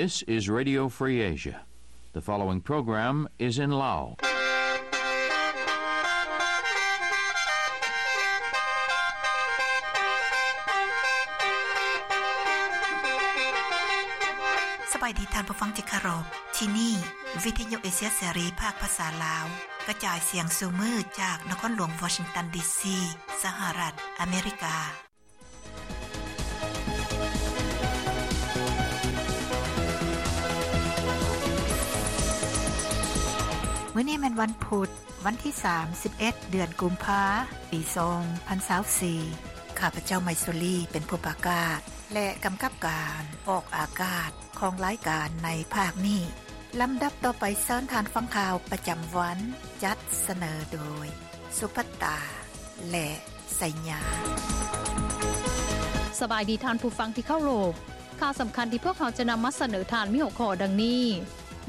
This is Radio Free Asia. The following program is in Lao. ສະບາຍດີທ່ານຜູ້ຟັງທີ່ເຄົາລົບ. ທີ່ນີ້ ວິທະຍຸເອເຊຍເສລີ ພາກພາສາລາວ ກະຈາຍສຽງສູ່ມື້ຈາກນະຄອນຫຼວງວໍຊິງຕັນ ດີຊີ ສະຫະລັດອາເມລິກາ. ມື້ນີ້ແມ່ນວັນພຸດ, ວັນທີສາມສິບເອັດ ເດືອນກຸມພາ ປີສອງພັນຊາວສີ່. ຂ້າພະເຈົ້າ ໄມຊູລີ ເປັນຜູ້ປະກາດ ແລະ ກຳກັບການອອກອາກາດຂອງລາຍການໃນພາກນີ້. ລຳດັບຕໍ່ໄປ ເຊີນທ່ານຟັງຂ່າວປະຈຳວັນ ຈັດສະເໜີໂດຍ ສຸພັດຕາ ແລະ ໄຊຍາ. ສະບາຍດີທ່ານຜູ້ຟັງທີ່ເຄົາລົບ. ຂ່າວສຳຄັນທີ່ພວກເຮົາຈະນຳມາສະເໜີທ່ານມີຫົວຂໍ້ດັ່ງນີ້: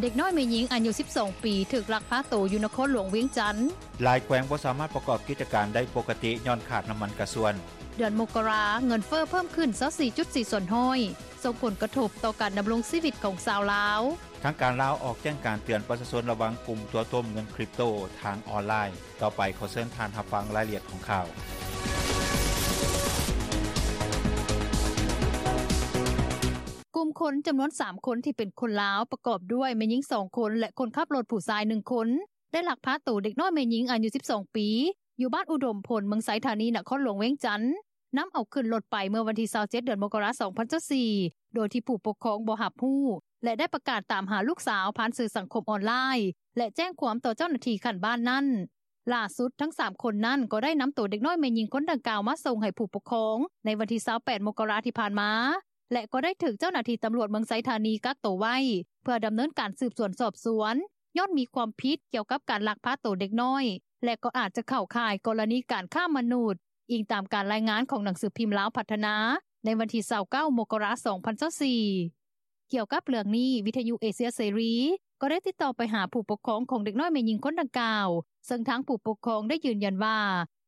ເດັກນ້ອຍແມ່ຍິງອາຍຸສິບສອງປີ ຖືກລັກພາໂຕຢູ່ນະຄອນຫຼວງວຽງຈັນ. ຫຼາຍແຂວງບໍ່ສາມາດປະກອບກິດຈະການໄດ້ປົກກະຕິ ຍ້ອນຂາດນ້ຳມັນກາຊວນ. ເດືອນມົກກະລາ ເງິນເຟີ້ເພີ່ມຂຶ້ນຊາວສີ່ຈຸດສີ່ສ່ວນຮ້ອຍ ສົ່ງຜົນກະທົບຕໍ່ການດຳລົງຊີວິດຂອງຊາວລາວ. ທາງການລາວອອກແຈ້ງການເຕືອນປະຊາຊົນລະວັງກຸ່ມຕົວະຕົ້ມເງິນຄຣິບໂຕທາງອອນລາຍ. ຕໍ່ໄປຂໍເຊີນທ່ານຮັບຟັງລາຍລະອຽດຂອງຂ່າວ. ກຸ່ມຄົນຈຳນວນສາມຄົນທີ່ເປັນຄົນລາວ ປະກອບດ້ວຍແມ່ຍິງສອງຄົນ ແລະ ຄົນຂັບລົດຜູ້ຊາຍໜຶ່ງຄົນ ໄດ້ລັກພາໂຕເດັກນ້ອຍແມ່ຍິງອາຍຸສິບສອງປີ ຢູ່ບ້ານອຸດົມພົນ ເມືອງໄຊທານີ ນະຄອນຫຼວງວຽງຈັນ ນຳເອົາຂຶ້ນລົດໄປເມື່ອວັນທີຊາວເຈັດ ເດືອນມົກກະລາ ສອງພັນຊາວສີ່ ໂດຍທີ່ຜູ້ປົກຄອງບໍ່ຮັບຮູ້ ແລະ ໄດ້ປະກາດຕາມຫາລູກສາວຜ່ານສື່ສັງຄົມອອນລາຍ ແລະ ແຈ້ງຄວາມຕໍ່ເຈົ້າໜ້າທີ່ຂັ້ນບ້ານນັ້ນ. ຫຼ້າສຸດທັງສາມຄົນນັ້ນກໍໄດ້ນຳໂຕເດັກນ້ອຍແມ່ຍິງຄົນດັ່ງກ່າວມາສົ່ງໃຫ້ຜູ້ປົກຄອງໃນວັນທີຊາວແປດ ມົກກະລາທີ່ຜ່ານມາ ແລະ ກໍໄດ້ຖືກເຈົ້າໜ້າທີ່ຕຳຫຼວດເມືອງໄຊທານີກັກໂຕໄວ້ ເພື່ອດຳເນີນການສືບສວນສອບສວນ ຍ້ອນມີຄວາມຜິດກ່ຽວກັບການລັກພາໂຕເດັກນ້ອຍ ແລະ ກໍອາດຈະເຂົ້າຂ່າຍກໍລະນີການຄ້າມະນຸດ, ອີງຕາມການລາຍງານຂອງໜັງສືພິມລາວພັດທະນາ ໃນວັນທີຊາວເກົ້າ ມົກກະລາ ສອງພັນຊາວສີ່. ກ່ຽວກັບເລື່ອງນີ້, ວິທະຍຸເອເຊຍເສລີກໍໄດ້ຕິດຕໍ່ໄປຫາຜູ້ປົກຄອງຂອງເດັກນ້ອຍແມ່ຍິງຄົນດັ່ງກ່າວ, ເຊິ່ງທາງຜູ້ປົກຄອງໄດ້ຢືນຢັນວ່າ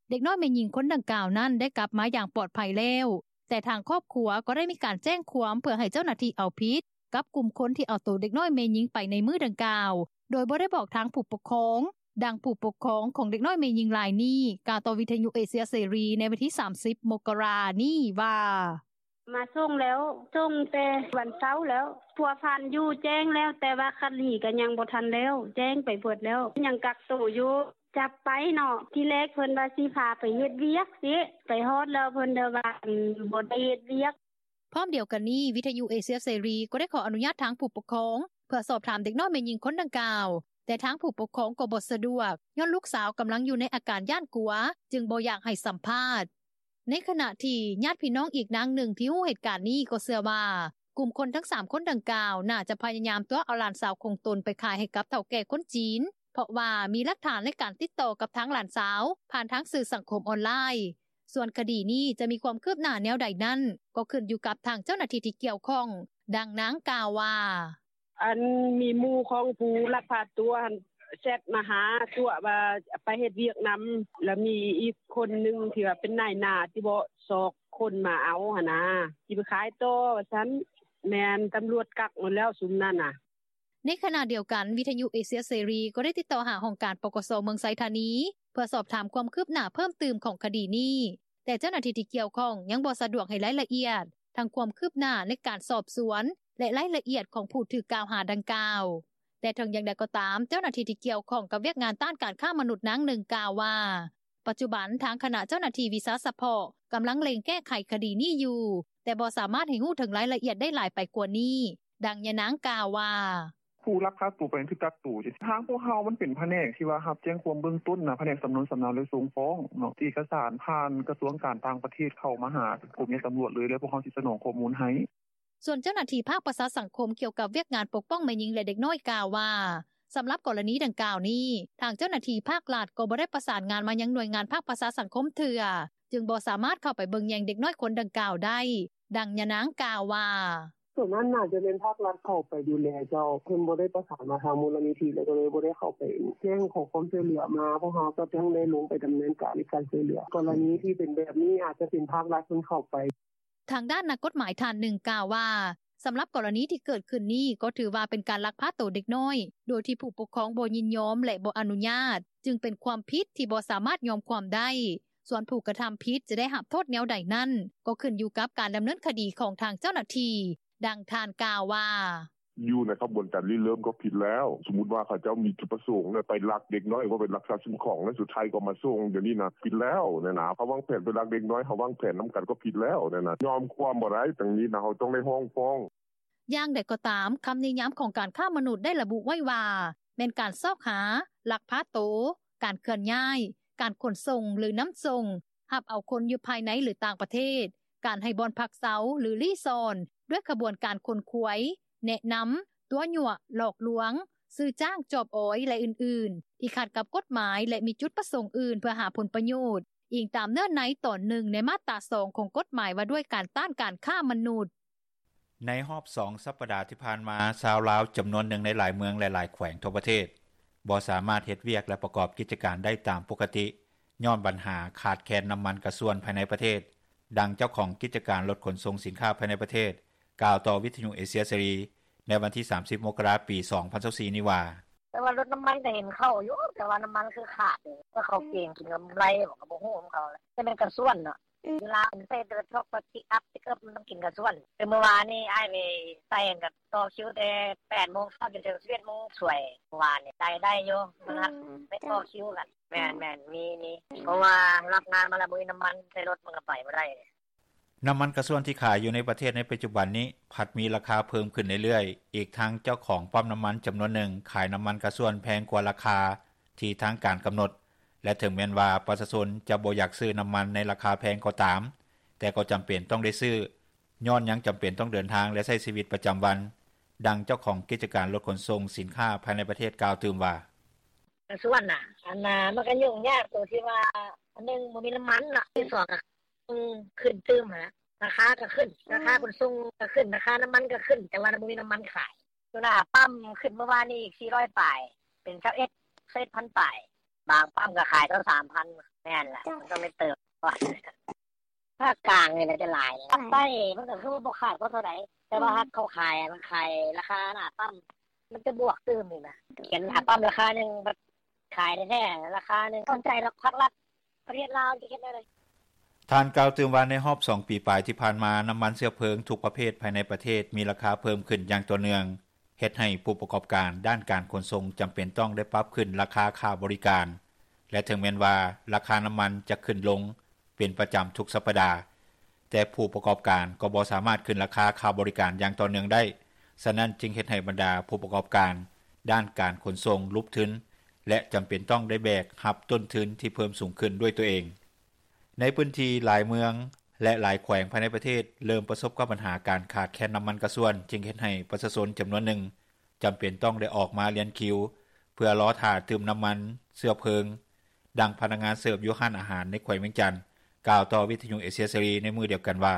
ເດັກນ້ອຍແມ່ຍິງຄົນດັ່ງກ່າວນັ້ນໄດ້ກັບມາຢ່າງປອດໄພແລ້ວ, ແຕ່ທາງຄອບຄົວກໍໄດ້ມີການແຈ້ງຄວາມເພື່ອໃຫ້ເຈົ້າໜ້າທີ່ເອົາຜິດກັບກຸ່ມຄົນທີ່ເອົາໂຕເດັກນ້ອຍແມ່ຍິງໄປໃນມື້ດັ່ງກ່າວ ໂດຍບໍ່ໄດ້ບອກທາງຜູ້ປົກຄອງ, ດັ່ງຜູ້ປົກຄອງຂອງເດັກນ້ອຍແມ່ຍິງລາຍນີ້ ກ່າວຕໍ່ວິທະຍຸເອເຊຍເສລີໃນວັນທີສາມສິບ ມົກກະລານີ້ວ່າ: ມາສົ່ງແລ້ວ, ສົ່ງແຕ່ວັນເສົາແລ້ວ, ພົວພັນຢູ່ແຈ້ງແລ້ວ, ແຕ່ວ່າຄະດີກໍຍັງບໍ່ທັນແລ້ວ, ແຈ້ງໄປເບິດແລ້ວ, ຍັງກັກໂຕຢູ່. ຈັບໄປເນາະ, ທີແລກເພິ່ນວ່າຊິພາໄປເຮັດວຽກຊິ, ໄປຮອດແລ້ວເພິ່ນເດີວ່າ ອັນ ບໍ່ໄດ້ເຮັດວຽກ. ພ້ອມດຽວກັນນີ້, ວິທະຍຸເອເຊຍເສລີກໍໄດ້ຂໍອະນຸຍາດທາງຜູ້ປົກຄອງ ເພື່ອສອບຖາມເດັກນ້ອຍແມ່ຍິງຄົນດັ່ງກ່າວ, ແຕ່ທາງຜູ້ປົກຄອງກໍບໍ່ສະດວກ, ຍ້ອນລູກສາວກຳລັງຢູ່ໃນອາການຢ້ານກົວ, ຈຶ່ງບໍ່ຢາກໃຫ້ສຳພາດ. ໃນຂະນະທີ່ຍາດພີ່ນ້ອງອີກນາງໜຶ່ງທີ່ຮູ້ເຫດການນີ້ກໍເຊື່ອວ່າ ກຸ່ມຄົນທັງສາມຄົນດັ່ງກ່າວ ໜ້າຈະພະຍາຍາມຕົວະເອົາຫຼານສາວຂອງຕົນໄປຂາຍໃຫ້ກັບເຖົ້າແກ່ຄົນຈີນ, ເພາະວ່າມີຫຼັກຖານໃນການຕິດຕໍ່ກັບທາງຫຼານສາວ ຜ່ານທາງສື່ສັງຄົມອອນລາຍ. ສ່ວນຄະດີນີ້ຈະມີຄວາມຄືບໜ້າແນວໃດນັ້ນ ກໍຂຶ້ນຢູ່ກັບທາງເຈົ້າໜ້າທີ່ທີ່ກ່ຽວຂ້ອງ, ດັ່ງນາງກ່າວວ່າ: ອັນ ມີໝູ່ຂອງຜູ້ລັກພາຕົວຫັ້ນ ແຊັດມາຫາຕົວະວ່າໄປເຮັດວຽກນຳ, ແລ້ວມີອີກຄົນໜຶ່ງທີ່ວ່າເປັນນາຍໜ້າຕິເບາະ ຊອກຄົນມາເອົາຫັ້ນນາ, ຊິໄປຂາຍຕໍ່ວ່າຊັ້ນ. ແມ່ນ, ຕຳຫຼວດກັກໝົດແລ້ວຊຸມນັ້ນນະ. ໃນຂະນະດຽວກັນ, ວິທະຍຸເອເຊຍເສລີກໍໄດ້ຕິດຕໍ່ຫາຫ້ອງການ ປກສ ເມືອງໄຊທານີ ເພື່ອສອບຖາມຄວາມຄືບໜ້າເພີ່ມຕື່ມຂອງຄະດີນີ້, ແຕ່ເຈົ້າໜ້າທີ່ທີ່ກ່ຽວຂ້ອງຍັງບໍ່ສະດວກໃຫ້ລາຍລະອຽດ ທັງຄວາມຄືບໜ້າໃນການສອບສວນ ແລະ ລາຍລະອຽດຂອງຜູ້ຖືກກ່າວຫາດັ່ງກ່າວ. ແຕ່ເຖິງຢ່າງໃດກໍຕາມ, ເຈົ້າໜ້າທີ່ທີ່ກ່ຽວຂ້ອງກັບວຽກງານຕ້ານການຄ້າມະນຸດນາງໜຶ່ງກ່າວວ່າ ປັດຈຸບັນທາງຄະນະເຈົ້າໜ້າທີ່ວິຊາສະເພາະກຳລັງເລັ່ງແກ້ໄຂຄະດີນີ້ຢູ່, ແຕ່ບໍ່ສາມາດໃຫ້ຮູ້ເຖິງລາຍລະອຽດໄດ້ຫຼາຍໄປກວ່ານີ້, ດັ່ງຍານາງກ່າວວ່າ: ຜູ້ລັກພາຕົວໄປນັ້ນຖືກກັກໂຕ. ທາງພວກເຮົາມັນເປັນພະແນກທີ່ວ່າຮັບແຈ້ງຄວາມເບື້ອງຕົ້ນນະ, ພະແນກສຳນວນສຳເນົາ ແລະ ສົ່ງຟ້ອງເນາະ, ເອກະສານຜ່ານກະຊວງການຕ່າງປະເທດເຂົ້າມາຫາກົມຕຳຫຼວດເລີຍ, ແລ້ວພວກເຮົາຊິສະໜອງຂໍ້ມູນໃຫ້. ສ່ວນເຈົ້າໜ້າທີ່ພາກປະຊາສັງຄົມກ່ຽວກັບວຽກງານປົກປ້ອງແມ່ຍິງ ແລະ ເດັກນ້ອຍກ່າວວ່າ ສຳລັບກໍລະນີດັ່ງກ່າວນີ້, ທາງເຈົ້າໜ້າທີ່ພາກລັດກໍບໍ່ໄດ້ປະສານງານມາຍັງໜ່ວຍງານພາກປະຊາສັງຄົມເທື່ອ, ຈຶ່ງບໍ່ສາມາດເຂົ້າໄປເບິ່ງແຍງເດັກນ້ອຍຄົນດັ່ງກ່າວໄດ້, ດັ່ງຍານາງກ່າວວ່າ: ສ່ວນນັ້ນໜ້າຈະແມ່ນພາກລັດເຂົ້າໄປດູແລເຈົ້າ, ເພິ່ນບໍ່ໄດ້ປະສານມາທາງມູນນິທິ ແລ້ວກໍເລີຍບໍ່ໄດ້ເຂົ້າໄປແຈ້ງຂໍຄວາມຊ່ວຍເຫຼືອມາ, ພວກເຮົາກໍຕ້ອງໄດ້ລົງໄປດຳເນີນການໃນການຊ່ວຍເຫຼືອ. ກໍລະນີທີ່ເປັນແບບນີ້ອາດຈະເປັນພາກລັດເພິ່ນເຂົ້າໄປ. ທາງດ້ານນັກກົດໝາຍທ່ານໜຶ່ງກ່າວວ່າ, ສ ສຳລັບກໍລະນີທີ່ເກີດຂຶ້ນນີ້ ກໍຖືວ່າເປັນການລັກພາໂຕເດັກນ້ອຍ ໂດຍທີ່ຜູ້ປົກຄອງບໍ່ຍິນຍອມ ແລະ ບໍ່ອະນຸຍາດ ຈຶ່ງເປັນຄວາມຜິດທີ່ບໍ່ສາມາດຍອມຄວາມໄດ້. ສ່ວນຜູ້ກະທຳຜິດຈະໄດ້ຮັບໂທດແນວໃດນັ້ນ ກໍຂຶ້ນຢູ່ກັບການດຳເນີນຄະດີຂອງທາງເຈົ້າໜ້າທີ່. ດັ່ງທ່ານກ່າວວ່າ: ຢູ່ໃນຂະບວນການລິເລີ່ມກໍຜິດແລ້ວ. ສົມມຸດວ່າເຂົາເຈົ້າມີຈຸດປະສົງໄປລັກເດັກນ້ອຍ ບໍ່ໄປລັກຊັບສິ່ງຂອງ ແລ້ວສຸດທ້າຍກໍມາສົ່ງ ດຽວນີ້ນະຜິດແລ້ວນະ. ເຮົາວາງແຜນໄປລັກເດັກນ້ອຍ ເຮົາວາງແຜນນຳກັນກໍຜິດແລ້ວນະ. ຍອມຄວາມບໍ່ໄດ້ ຈັ່ງນີ້ນະ ເຮົາຕ້ອງໄດ້ຮ້ອງຟ້ອງ. ຢ່າງໃດກໍຕາມ, ຄຳນິຍາມຂອງການຄ້າມະນຸດໄດ້ລະບຸໄວ້ວ່າ ແມ່ນການຊອກຫາ, ລັກພາໂຕ, ການເຄື່ອນຍ້າຍ, ການຂົນສົ່ງ ຫຼື ນຳສົ່ງ, ຮັບເອົາຄົນຢູ່ພາຍໃນ ຫຼື ຕ່າງປະເທດ, ການໃຫ້ບ່ອນພັກເຊົາ ຫຼື ລີ້ຊ່ອນ ດ້ວຍຂະບວນການຂົນຂວາຍ, ແນະນຳ, ຕົວະຍົວະ, ຫຼອກລວງ, ຊື້ຈ້າງ, ຈອບອອຍ ແລະ ອື່ນໆ ທີ່ຂັດກັບກົດໝາຍ ແລະ ມີຈຸດປະສົງອື່ນເພື່ອຫາຜົນປະໂຫຍດ, ອີງຕາມເນື້ອໃນຕອນໜຶ່ງໃນມາດຕາສອງຂອງກົດໝາຍວ່າດ້ວຍການຕ້ານການຄ້າມະນຸດ. ໃນຮອບສອງສັບປະດາທີ່ຜ່ານມາ, ຊາວລາວຈຳນວນໜຶ່ງໃນຫຼາຍເມືອງ ແລະ ຫຼາຍແຂວງທົ່ວປະເທດ ບໍ່ສາມາດເຮັດວຽກ ແລະ ປະກອບກິດຈະການໄດ້ຕາມປົກກະຕິ ຍ້ອນບັນຫາຂາດແຄນນ້ຳມັນກະຊວນພາຍໃນປະເທດ. ດັ່ງເຈົ້າຂອງກິດຈະການລົດຂົນສົ່ງສິນຄ້າພາຍໃນປະເທດ ກ່າວຕໍ່ວິທະຍຸເອເຊຍເສລີ ໃນວັນທີສາມສິບ ມົກກະລາ ປີສອງພັນຊາວສີ່ນີ້ວ່າ: ແຕ່ວ່າລົດນ້ຳມັນກໍເຫັນເຂົ້າຢູ່ ແຕ່ວ່ານ້ຳມັນຄືຂາດ ເຂົາເກັ່ງກິນກຳໄລ ກໍບໍ່ຮູ້ນຳເຂົາ ແຕ່ແມ່ນກະຊວນເນາະ. ຢູ່ລາວເພິ່ນໃຊ້ແຕ່ພວກປິກອັບ ປິກອັບ ມັນຕ້ອງກິນກະຊວນ. ຄືມື້ວານນີ້ອ້າຍໄປໃສ່ ກໍຕໍ່ຄິວແຕ່ແປດໂມງເຊົ້າຈົນເຖິງສິບເອັດໂມງສວຍ. ມື້ວານນີ້ໃສ່ໄດ້ຢູ່ ມັນໄປຕໍ່ຄິວກັນ. ແມ່ນໆ ມີໆ ເພາະວ່າຮັບງານມາແລ້ວບໍ່ມີນ້ຳມັນໃສ່ລົດ ມັນກໍໄປບໍ່ໄດ້. ນ້ຳມັນກະຊວນທີ່ຂາຍຢູ່ໃນປະເທດໃນປັດຈຸບັນນີ້ ພັດມີລາຄາເພີ່ມຂຶ້ນເລື້ອຍໆ, ອີກທັງເຈົ້າຂອງປ້ຳນ້ຳມັນຈຳນວນໜຶ່ງ ຂາຍນ້ຳມັນກະຊວນແພງກວ່າລາຄາທີ່ທາງການກຳນົດ ແລະ ເຖິງແມ່ນວ່າປະຊາຊົນຈະບໍ່ຢາກຊື້ນ້ຳມັນໃນລາຄາແພງກໍຕາມ, ແຕ່ກໍຈຳເປັນຕ້ອງໄດ້ຊື້ ຍ້ອນຍັງຈຳເປັນຕ້ອງເດີນທາງ ແລະ ໃຊ້ຊີວິດປະຈຳວັນ. ດັ່ງເຈົ້າຂອງກິດຈະການລົດຂົນສົ່ງສິນຄ້າພາຍໃນປະເທດກ່າວຕື່ມວ່າ: ກະຊວນນະ ອັນນ່າ ມັນກໍຫຍຸ້ງຍາກໂຕທີ່ວ່າ ອັນໜຶ່ງບໍ່ມີນ້ຳມັນເນາະ ອັນທີສອງກໍຂຶ້ນຕື່ມຫັ້ນນະ ລາຄາກໍຂຶ້ນ ລາຄາຂົນສົ່ງກໍຂຶ້ນ ລາຄານ້ຳມັນກໍຂຶ້ນ ແຕ່ວ່າບໍ່ມີນ້ຳມັນຂາຍ. ຢູ່ໜ້າປ້ຳຂຶ້ນເມື່ອວານນີ້ອີກສີ່ຮ້ອຍປາຍ ເປັນຊາວເອັດ ຊາວເອັດພັນປາຍ ບາງປ້ຳກໍຂາຍເທົ່າສາມພັນ. ແມ່ນລະ ມັນຕ້ອງໄດ້ເຕີມ ພາກກາງນີ້ແຫຼະຈະຫຼາຍ ພາກໃຕ້ມັນກໍຄືວ່າບໍ່ຂາດເທົ່າໃດ ແຕ່ວ່າຫາກເຂົາຂາຍ ມັນຂາຍລາຄາໜ້າປ້ຳ ມັນຈະບວກຕື່ມອີກນະ. ຂຽນໜ້າປ້ຳລາຄາໜຶ່ງ ບັດຂາຍແທ້ໆລາຄາໜຶ່ງ ເຂົ້າໃຈດອກ ພາກລັດປະເທດລາວຈະເຮັດແນວໃດ. ທ່ານກ່າວຕື່ມວ່າ ໃນຮອບສອງປີປາຍທີ່ຜ່ານມາ ນ້ຳມັນເຊື້ອເພີງທຸກປະເພດພາຍໃນປະເທດມີລາຄາເພີ່ມຂຶ້ນຢ່າງຕໍ່ເນື່ອງ ເຮັດໃຫ້ຜູ້ປະກອບການດ້ານການຂົນສົ່ງຈຳເປັນຕ້ອງໄດ້ປັບຂຶ້ນລາຄາຄ່າບໍລິການ ແລະ ເຖິງແມ່ນວ່າລາຄານ້ຳມັນຈະຂຶ້ນລົງເປັນປະຈຳທຸກສັບປະດາ ແຕ່ຜູ້ປະກອບການກໍບໍ່ສາມາດຂຶ້ນລາຄາຄ່າບໍລິການຢ່າງຕໍ່ເນື່ອງໄດ້. ສະນັ້ນຈຶ່ງເຮັດໃຫ້ບັນດາຜູ້ປະກອບການດ້ານການຂົນສົ່ງຫຼຸບທຶນ ແລະ ຈຳເປັນຕ້ອງໄດ້ແບກຮັບຕົ້ນທຶນທີ່ເພີ່ມສູງຂຶ້ນດ້ວຍຕົວເອງ. ໃນພື້ນທີ່ຫຼາຍເມືອງ ແລະ ຫຼາຍແຂວງພາຍໃນປະເທດ ເລີ່ມປະສົບກັບບັນຫາການຂາດແຄນນ້ຳມັນກະຊວນ ຈຶ່ງເຮັດໃຫ້ປະຊາຊົນຈຳນວນໜຶ່ງ ຈຳເປັນຕ້ອງໄດ້ອອກມາລຽນຄິວ ເພື່ອລໍຖ້າຕື່ມນ້ຳມັນເຊື້ອເພີງ. ດັ່ງພະນັກງານເສີບຢູ່ຮ້ານອາຫານໃນແຂວງວຽງຈັນ ກ່າວຕໍ່ວິທະຍຸເອເຊຍເສລີໃນມື້ດຽວກັນວ່າ: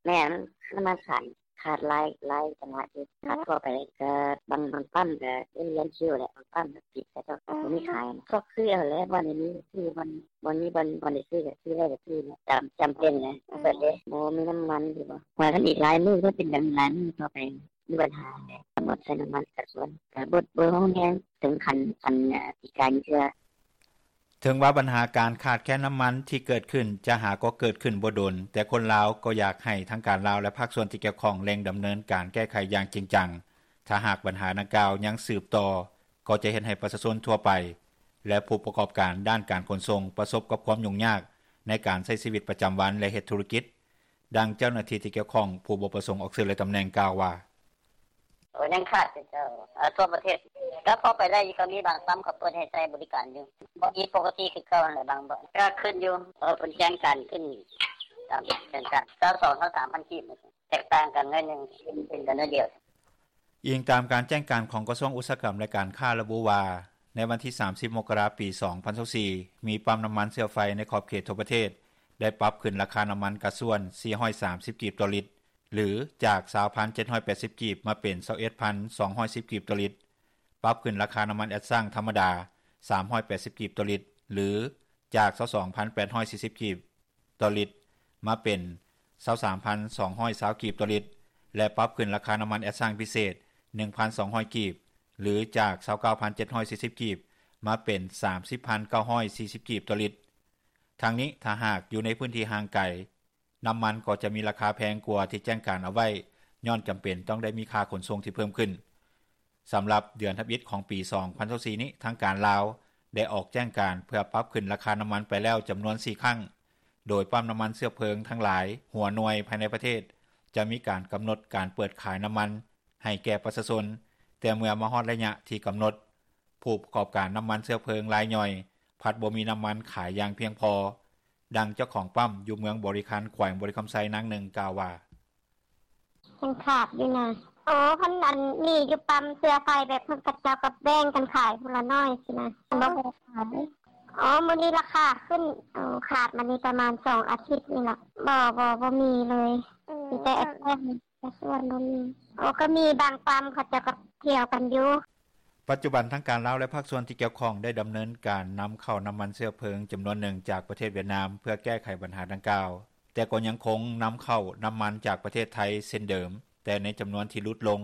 ແມ່ນ ນ້ຳມັນຂາດ ຂາດຫຼາຍ ຫຼາຍຈັງຫວະຢູ່ ຂາດທົ່ວໄປ ກໍບາງ ບາງປ້ຳກໍໄດ້ລຽນຄິວແຫຼະ ບາງປ້ຳກໍປິດ ເຂົາເຈົ້າກໍບໍ່ມີຂາຍ. ຊອກຊື້ເອົາແຫຼະ ບ່ອນໃດມີຊື້ ບ່ອນ ບໍ່ມີ ບ່ອນ ບ່ອນໃດຊື້ກໍຊື້ໄດ້ກໍຊື້ແຫຼະ ຈຳ ຈຳເປັນແຫຼະ ເບິດເດ້ ບໍ່ມີນ້ຳມັນຢູ່ບໍ່ ວ່າກັນອີກຫຼາຍມື້ ກໍເປັນກັນຫຼາຍມື້ຕໍ່ໄປ ມີບັນຫາແຫຼະ ກຳນົດໃຊ້ນ້ຳມັນກະຊວນ ກໍບໍ່ ບໍ່ຮຸນແຮງເຖິງຂັ້ນ ຂັ້ນ ເອີ ປີກາຍນີ້ເທື່ອ. ເຖິງວ່າບັນຫາການຂາດແຄນນ້ຳມັນທີ່ເກີດຂຶ້ນຈະຫາກໍເກີດຂຶ້ນບໍ່ດົນ, ແຕ່ຄົນລາວກໍຢາກໃຫ້ທາງການລາວ ແລະ ພາກສ່ວນທີ່ກ່ຽວຂ້ອງເລັ່ງດຳເນີນການແກ້ໄຂຢ່າງຈິງຈັງ. ຖ້າຫາກບັນຫາດັ່ງກ່າວຍັງສືບຕໍ່, ກໍຈະເຮັດໃຫ້ປະຊາຊົນທົ່ວໄປ ແລະ ຜູ້ປະກອບການດ້ານການຂົນສົ່ງປະສົບກັບຄວາມຫຍຸ້ງຍາກໃນການໃຊ້ຊີວິດປະຈຳວັນ ແລະ ເຮັດທຸລະກິດ. ດັ່ງເຈົ້າໜ້າທີ່ທີ່ກ່ຽວຂ້ອງຜູ້ບໍ່ປະສົງອອກຊື່ ແລະ ຕຳແໜ່ງກ່າວວ່າ: ໂອ ຍັງຂາດຢູ່ເຈົ້າ ເອີ ທົ່ວປະເທດ ກໍພໍໄປໄດ້ຢູ່ ກໍມີບາງປ້ຳເຂົາເປີດໃຫ້ໃຊ້ບໍລິການຢູ່ ບໍ່ມີປົກກະຕິຄືເກົ່າຫັ້ນແຫຼະ ບາງບ່ອນກໍຂຶ້ນຢູ່ ເອີ ເພິ່ນແຈ້ງການຂຶ້ນຕາມແຈ້ງການ ຊາວສອງ ຊາວສາມພັນກີບ ແຕກຕ່າງກັນໜ້ອຍໜຶ່ງ ຂຶ້ນກັນໜ້ອຍດຽວ. ອີງຕາມການແຈ້ງການຂອງກະຊວງອຸດສາຫະກຳ ແລະ ການຄ້າລະບຸວ່າ ໃນວັນທີສາມສິບ ມົກກະລາ ປີສອງພັນຊາວສີ່ ມີປ້ຳນ້ຳມັນເຊື້ອໄຟໃນຂອບເຂດທົ່ວປະເທດ ໄດ້ປັບຂຶ້ນລາຄານ້ຳມັນກະຊວນ ສີ່ຮ້ອຍສາມສິບ ກີບຕໍ່ລິດ ຫຼື ຈາກ ຊາວພັນເຈັດຮ້ອຍແປດສິບ ກີບ ມາເປັນ ຊາວເອັດພັນສອງຮ້ອຍສິບ ກີບຕໍ່ລິດ, ປັບຂຶ້ນລາຄານ້ຳມັນແອັດຊັງທຳມະດາ ສາມຮ້ອຍແປດສິບ ກີບຕໍ່ລິດ ຫຼື ຈາກ ຊາວສອງພັນແປດຮ້ອຍສີ່ສິບ ກີບຕໍ່ລິດ ມາເປັນ ຊາວສາມພັນສອງຮ້ອຍຊາວ ກີບຕໍ່ລິດ, ແລະ ປັບຂຶ້ນລາຄານໍ້າມັນແອັດຊັງພິເສດ ໜຶ່ງພັນສອງຮ້ອຍກີບ ຫຼື ຈາກ ຊາວເກົ້າພັນເຈັດຮ້ອຍສີ່ສິບກີບ ມາເປັນ ສາມສິບພັນເກົ້າຮ້ອຍສີ່ສິບກີບຕໍ່ລິດ. ທັງນີ້ ຖ້າຫາກຢູ່ໃນພື້ນທີ່ຫ່າງໄກ ນໍ້າມັນກໍຈະມີລາຄາແພງກວ່າທີ່ແຈ້ງການເອົາໄວ້ ຍ້ອນຈຳເປັນຕ້ອງໄດ້ມີຄ່າຂົນສົ່ງທີ່ເພີ່ມຂຶ້ນ. ສຳລັບເດືອນທຳອິດຂອງປີສອງພັນຊາວສີ່ນີ້ ທາງການລາວໄດ້ອອກແຈ້ງການເພື່ອປັບຂຶ້ນລາຄານໍ້າມັນໄປແລ້ວຈຳນວນສີ່ຄັ້ງ, ໂດຍປ້ຳນໍ້າມັນເຊື້ອເພີງທັງຫຼາຍຫົວໜ່ວຍພາຍໃນປະເທດ ຈະມີການກຳນົດການເປີດຂາຍນໍ້າມັນໃຫ້ແກ່ປະຊາຊົນ, ແຕ່ເມື່ອມາຮອດໄລຍະທີ່ກຳນົດ, ຜູ້ປະກອບການນໍ້າມັນເຊື້ອເພີງລາຍຍ່ອຍ ພັດບໍ່ມີນໍ້າມັນຂາຍຢ່າງພຽງພໍ. ດັ່ງເຈົ້າຂອງປ້ຳຢູ່ເມືອງບໍລິຄັນ ແຂວງບໍລິຄຳໄຊ ນາງໜຶ່ງກ່າວວ່າ: ຍັງຂາດຢູ່ນະ. ໂອ້ ຄັນອັນມີຢູ່ປ້ຳເຊື້ອໄຟ ແບບເພິ່ນ ເຂົາເຈົ້າກໍແບ່ງກັນຂາຍຜູ້ລະໜ້ອຍຊີ້ນະ ບໍ່ແບ່ງຂາຍ. ອໍ ມື້ນີ້ລາຄາຂຶ້ນ. ໂອ້ ຂາດມານີ້ປະມານສອງອາທິດນີ້ລະ. ບໍ່ ບໍ່ ບໍ່ມີເລີຍ. ມີແຕ່ແອັດແທກ ແຕ່ສ່ວນບໍ່ມີ. ໂອ້ ກໍມີບາງປ້ຳ ເຂົາເຈົ້າກໍທ່ຽວກັນຢູ່. ປັດຈຸບັນທາງການລາວ ແລະ ພາກສ່ວນທີ່ກ່ຽວຂ້ອງໄດ້ດຳເນີນການນຳເຂົ້ານໍ້າມັນເຊື້ອເພີງຈຳນວນໜຶ່ງຈາກປະເທດຫວຽດນາມ ເພື່ອແກ້ໄຂບັນຫາດັ່ງກ່າວ, ແຕ່ກໍຍັງຄົງນຳເຂົ້ານໍ້າມັນຈາກປະເທດໄທເຊັ່ນເດີມ, ແຕ່ໃນຈຳນວນທີ່ຫຼຸດລົງ.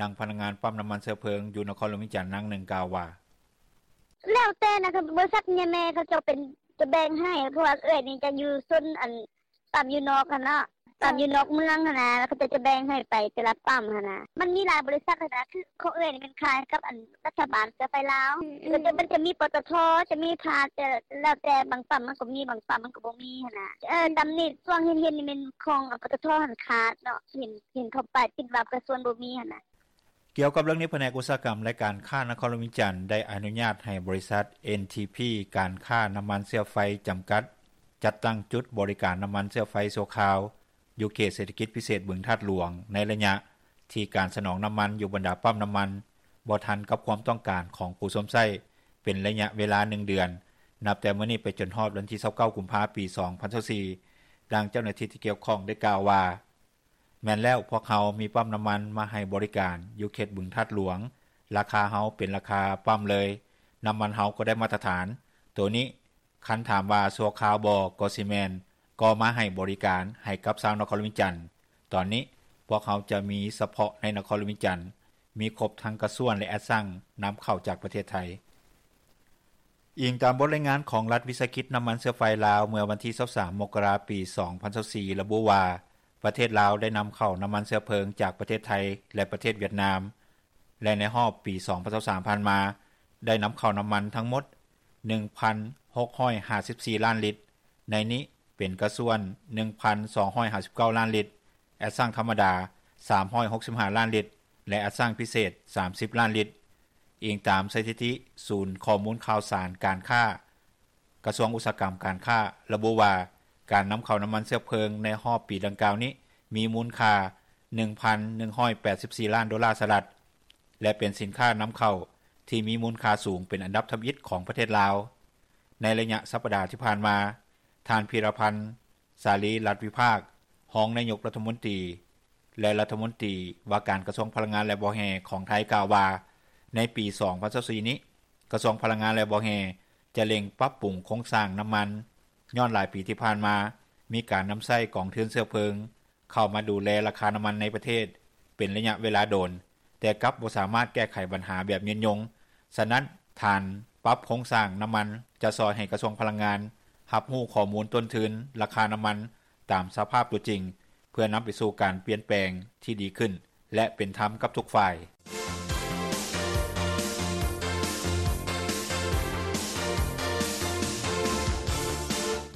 ດັ່ງພະນັກງານປ້ຳນໍ້າມັນເຊື້ອເພີງຢູ່ນະຄອນຫຼວງວຽງຈັນນາງໜຶ່ງກ່າວວ່າ: ແລ້ວແຕ່ນະ ບໍລິສັດໃຫຍ່ແມ່ເຂົາເຈົ້າເປັນ ຈະແບ່ງໃຫ້ ເພາະວ່າເອື້ອຍນີ້ຈະຢູ່ໂຊນອັນ ປ້ຳຢູ່ນອກຫັ້ນເນາະ ປ້ຳຢູ່ນອກເມືອງຫັ້ນນະ ແລ້ວເຂົາເຈົ້າຈະແບ່ງໃຫ້ໄປແຕ່ລະປ້ຳຫັ້ນນະ. ມັນມີຫຼາຍບໍລິສັດຫັ້ນນະ ຄືຂອງເອື້ອຍນີ້ແມ່ນຂາຍກັບອັນລັດຖະບານເຊື້ອໄຟລາວ ອືມ ແລ້ວແຕ່ມັນຈະມີ ປຕທ ຈະມີພາດ ແຕ່ແລ້ວແຕ່ ບາງປ້ຳມັນກໍມີ ບາງປ້ຳມັນກໍບໍ່ມີຫັ້ນນະ. ເອີ ອືມ ຕຳນີ້ຊ່ວງເຫັນໆນີ້ແມ່ນຂອງ ປຕທ ຫັ້ນຂາດເນາະ ເຫັນ ເຫັນເຂົາປ້າຍຕິດວ່າກະຊວນບໍ່ມີຫັ້ນນະ. ກ່ຽວກັບເລື່ອງນີ້ ພະແນກອຸດສາຫະກຳ ແລະ ການຄ້ານະຄອນຫຼວງວຽງຈັນ ໄດ້ອະນຸຍາດໃຫ້ບໍລິສັດ ເອັນທີພີ ການຄ້ານໍ້າມັນເຊື້ອໄຟ ຈຳກັດ ຈັດຕັ້ງຈຸດບໍລິການນໍ້າມັນເຊື້ອໄຟຊົ່ວຄາວ ຢູ່ເຂດເສດຖະກິດພິເສດບຶງທາດຫຼວງ ໃນໄລຍະທີ່ການສະໜອງນໍ້າມັນຢູ່ບັນດາປ້ຳນໍ້າມັນ ບໍ່ທັນກັບຄວາມຕ້ອງການຂອງຜູ້ຊົມໃຊ້ ເປັນໄລຍະເວລາໜຶ່ງເດືອນ ນັບແຕ່ມື້ນີ້ໄປຈົນຮອດວັນທີຊາວເກົ້າ ກຸມພາ ປີສອງພັນຊາວສີ່. ດັ່ງເຈົ້າໜ້າທີ່ທີ່ກ່ຽວຂ້ອງໄດ້ກ່າວວ່າ: ແມ່ນແລ້ວ, ພວກເຮົາມີປ້ຳນໍ້າມັນມາໃຫ້ບໍລິການຢູ່ເຂດບຶງທາດຫຼວງ, ລາຄາເຮົາເປັນລາຄາປ້ຳເລີຍ, ນໍ້າມັນເຮົາກໍໄດ້ມາດຕະຖານ. ໂຕນີ້ ຄັນຖາມວ່າຊົ່ວຄາວບໍ່ ກໍຊິແມ່ນ, ກໍມາໃຫ້ບໍລິການໃຫ້ກັບຊາວນະຄອນຫຼວງວຽງຈັນ. ຕອນນີ້ ພວກເຮົາຈະມີສະເພາະໃນນະຄອນຫຼວງວຽງຈັນ, ມີຄົບທັງກະຊວນ ແລະ ແອັດຊັງນຳເຂົ້າຈາກປະເທດໄທ. ອີງຕາມບົດລາຍງານຂອງລັດວິສາຫະກິດນໍ້າມັນເຊື້ອໄຟລາວ ເມື່ອວັນທີຊາວສາມ ມົກກະລາ ປີສອງພັນຊາວສີ່ ລະບຸວ່າ ປະເທດລາວໄດ້ນຳເຂົ້ານໍ້າມັນເຊື້ອເພີງຈາກປະເທດໄທ ແລະ ປະເທດຫວຽດນາມ ແລະ ໃນຮອບປີສອງພັນຊາວສາມຜ່ານມາ ໄດ້ນຳເຂົ້ານໍ້າມັນທັງໝົດ ໜຶ່ງພັນຫົກຮ້ອຍຫ້າສິບສີ່ລ້ານລິດ, ໃນນີ້ເປັນກະຊວນ ໜຶ່ງພັນສອງຮ້ອຍຫ້າສິບເກົ້າລ້ານລິດ, ແອັດຊັງທຳມະດາ ສາມຮ້ອຍຫົກສິບຫ້າລ້ານລິດ ແລະ ແອັດຊັງພິເສດ ສາມສິບລ້ານລິດ. ອີງຕາມສະຖິຕິສູນຂໍ້ມູນຂ່າວສານການຄ້າ ກະຊວງອຸດສາຫະກຳການຄ້າ ລະບຸວ່າ ການນຳເຂົ້ານໍ້າມັນເຊື້ອເພີງໃນຮອບປີດັ່ງກ່າວນີ້ ມີມູນຄ່າ ໜຶ່ງພັນໜຶ່ງຮ້ອຍແປດສິບສີ່ລ້ານໂດລາສະຫະລັດ ແລະ ເປັນສິນຄ້ານຳເຂົ້າທີ່ມີມູນຄ່າສູງເປັນອັນດັບທຳອິດຂອງປະເທດລາວ. ໃນໄລຍະສັບປະດາທີ່ຜ່ານມາ, ທ່ານ ພີລະພັນ ສາລີລັດວິພາກ ຮອງນາຍົກລັດຖະມົນຕີ ແລະ ລັດຖະມົນຕີວ່າການກະຊວງພະລັງງານ ແລະ ບໍ່ແຮ່ຂອງໄທ ກ່າວວ່າ ໃນປີສອງພັນຊາວສີ່ນີ້ ກະຊວງພະລັງງານ ແລະ ບໍ່ແຮ່ ຈະເລັ່ງປັບປຸງໂຄງສ້າງນໍ້າມັນ ຍ້ອນຫຼາຍປີທີ່ຜ່ານມາ ມີການນຳໃຊ້ກອງທຶນເຊື້ອເພີງ ເຂົ້າມາດູແລລາຄານໍ້າມັນໃນປະເທດເປັນໄລຍະເວລາດົນ, ແຕ່ກັບບໍ່ສາມາດແກ້ໄຂບັນຫາແບບຍືນຍົງ. ສະນັ້ນ, ການປັບໂຄງສ້າງນໍ້າມັນ ຈະຊ່ອຍໃຫ້ກະຊວງພະລັງງານ ຮັບຮູ້ຂໍ້ມູນຕົ້ນທຶນລາຄານໍ້າມັນຕາມສະພາບຕົວຈິງ, ເພື່ອນຳໄປສູ່ການປ່ຽນແປງທີ່ດີຂຶ້ນ ແລະ ເປັນທຳກັບທຸກຝ່າຍ.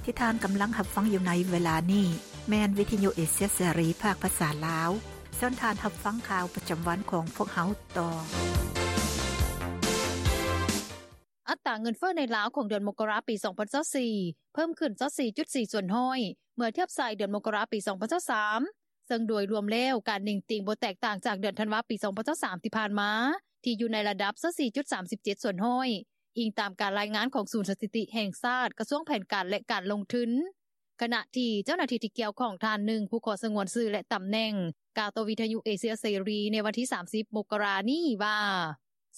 ທີ່ທ່ານກຳລັງຮັບຟັງຢູ່ໃນເວລານີ້ ແມ່ນວິທະຍຸເອເຊຍເສລີ ພາກພາສາລາວ. ເຊີນທ່ານຮັບຟັງຂ່າວປະຈຳວັນຂອງພວກເຮົາຕໍ່. ອັດຕາເງິນເຟີ້ໃນລາວຂອງເດືອນມົກກະລາ ປີສອງພັນຊາວສີ່ ເພີ່ມຂຶ້ນ ຊາວສີ່ຈຸດສີ່ສ່ວນຮ້ອຍ ເມື່ອທຽບໃສ່ເດືອນມົກກະລາ ປີສອງພັນຊາວສາມ ເຊິ່ງໂດຍລວມແລ້ວ ການເໜັງຕີງບໍ່ແຕກຕ່າງຈາກເດືອນທັນວາ ປີສອງພັນຊາວສາມ ທີ່ຜ່ານມາ ທີ່ຢູ່ໃນລະດັບ ຊາວສີ່ຈຸດສາມສິບເຈັດສ່ວນຮ້ອຍ ອີງຕາມການລາຍງານຂອງສູນສະຖິຕິແຫ່ງຊາດ ກະຊວງແຜນການ ແລະ ການລົງທຶນ. ຂະນະທີ່ເຈົ້າໜ້າທີ່ທີ່ກ່ຽວຂ້ອງທ່ານໜຶ່ງ ຜູ້ຂໍສະຫງວນຊື່ ແລະ ຕຳແໜ່ງ ກ່າວຕໍ່ວິທະຍຸເອເຊຍເສລີໃນວັນທີສາມສິບ ມົກກະລານີ້ວ່າ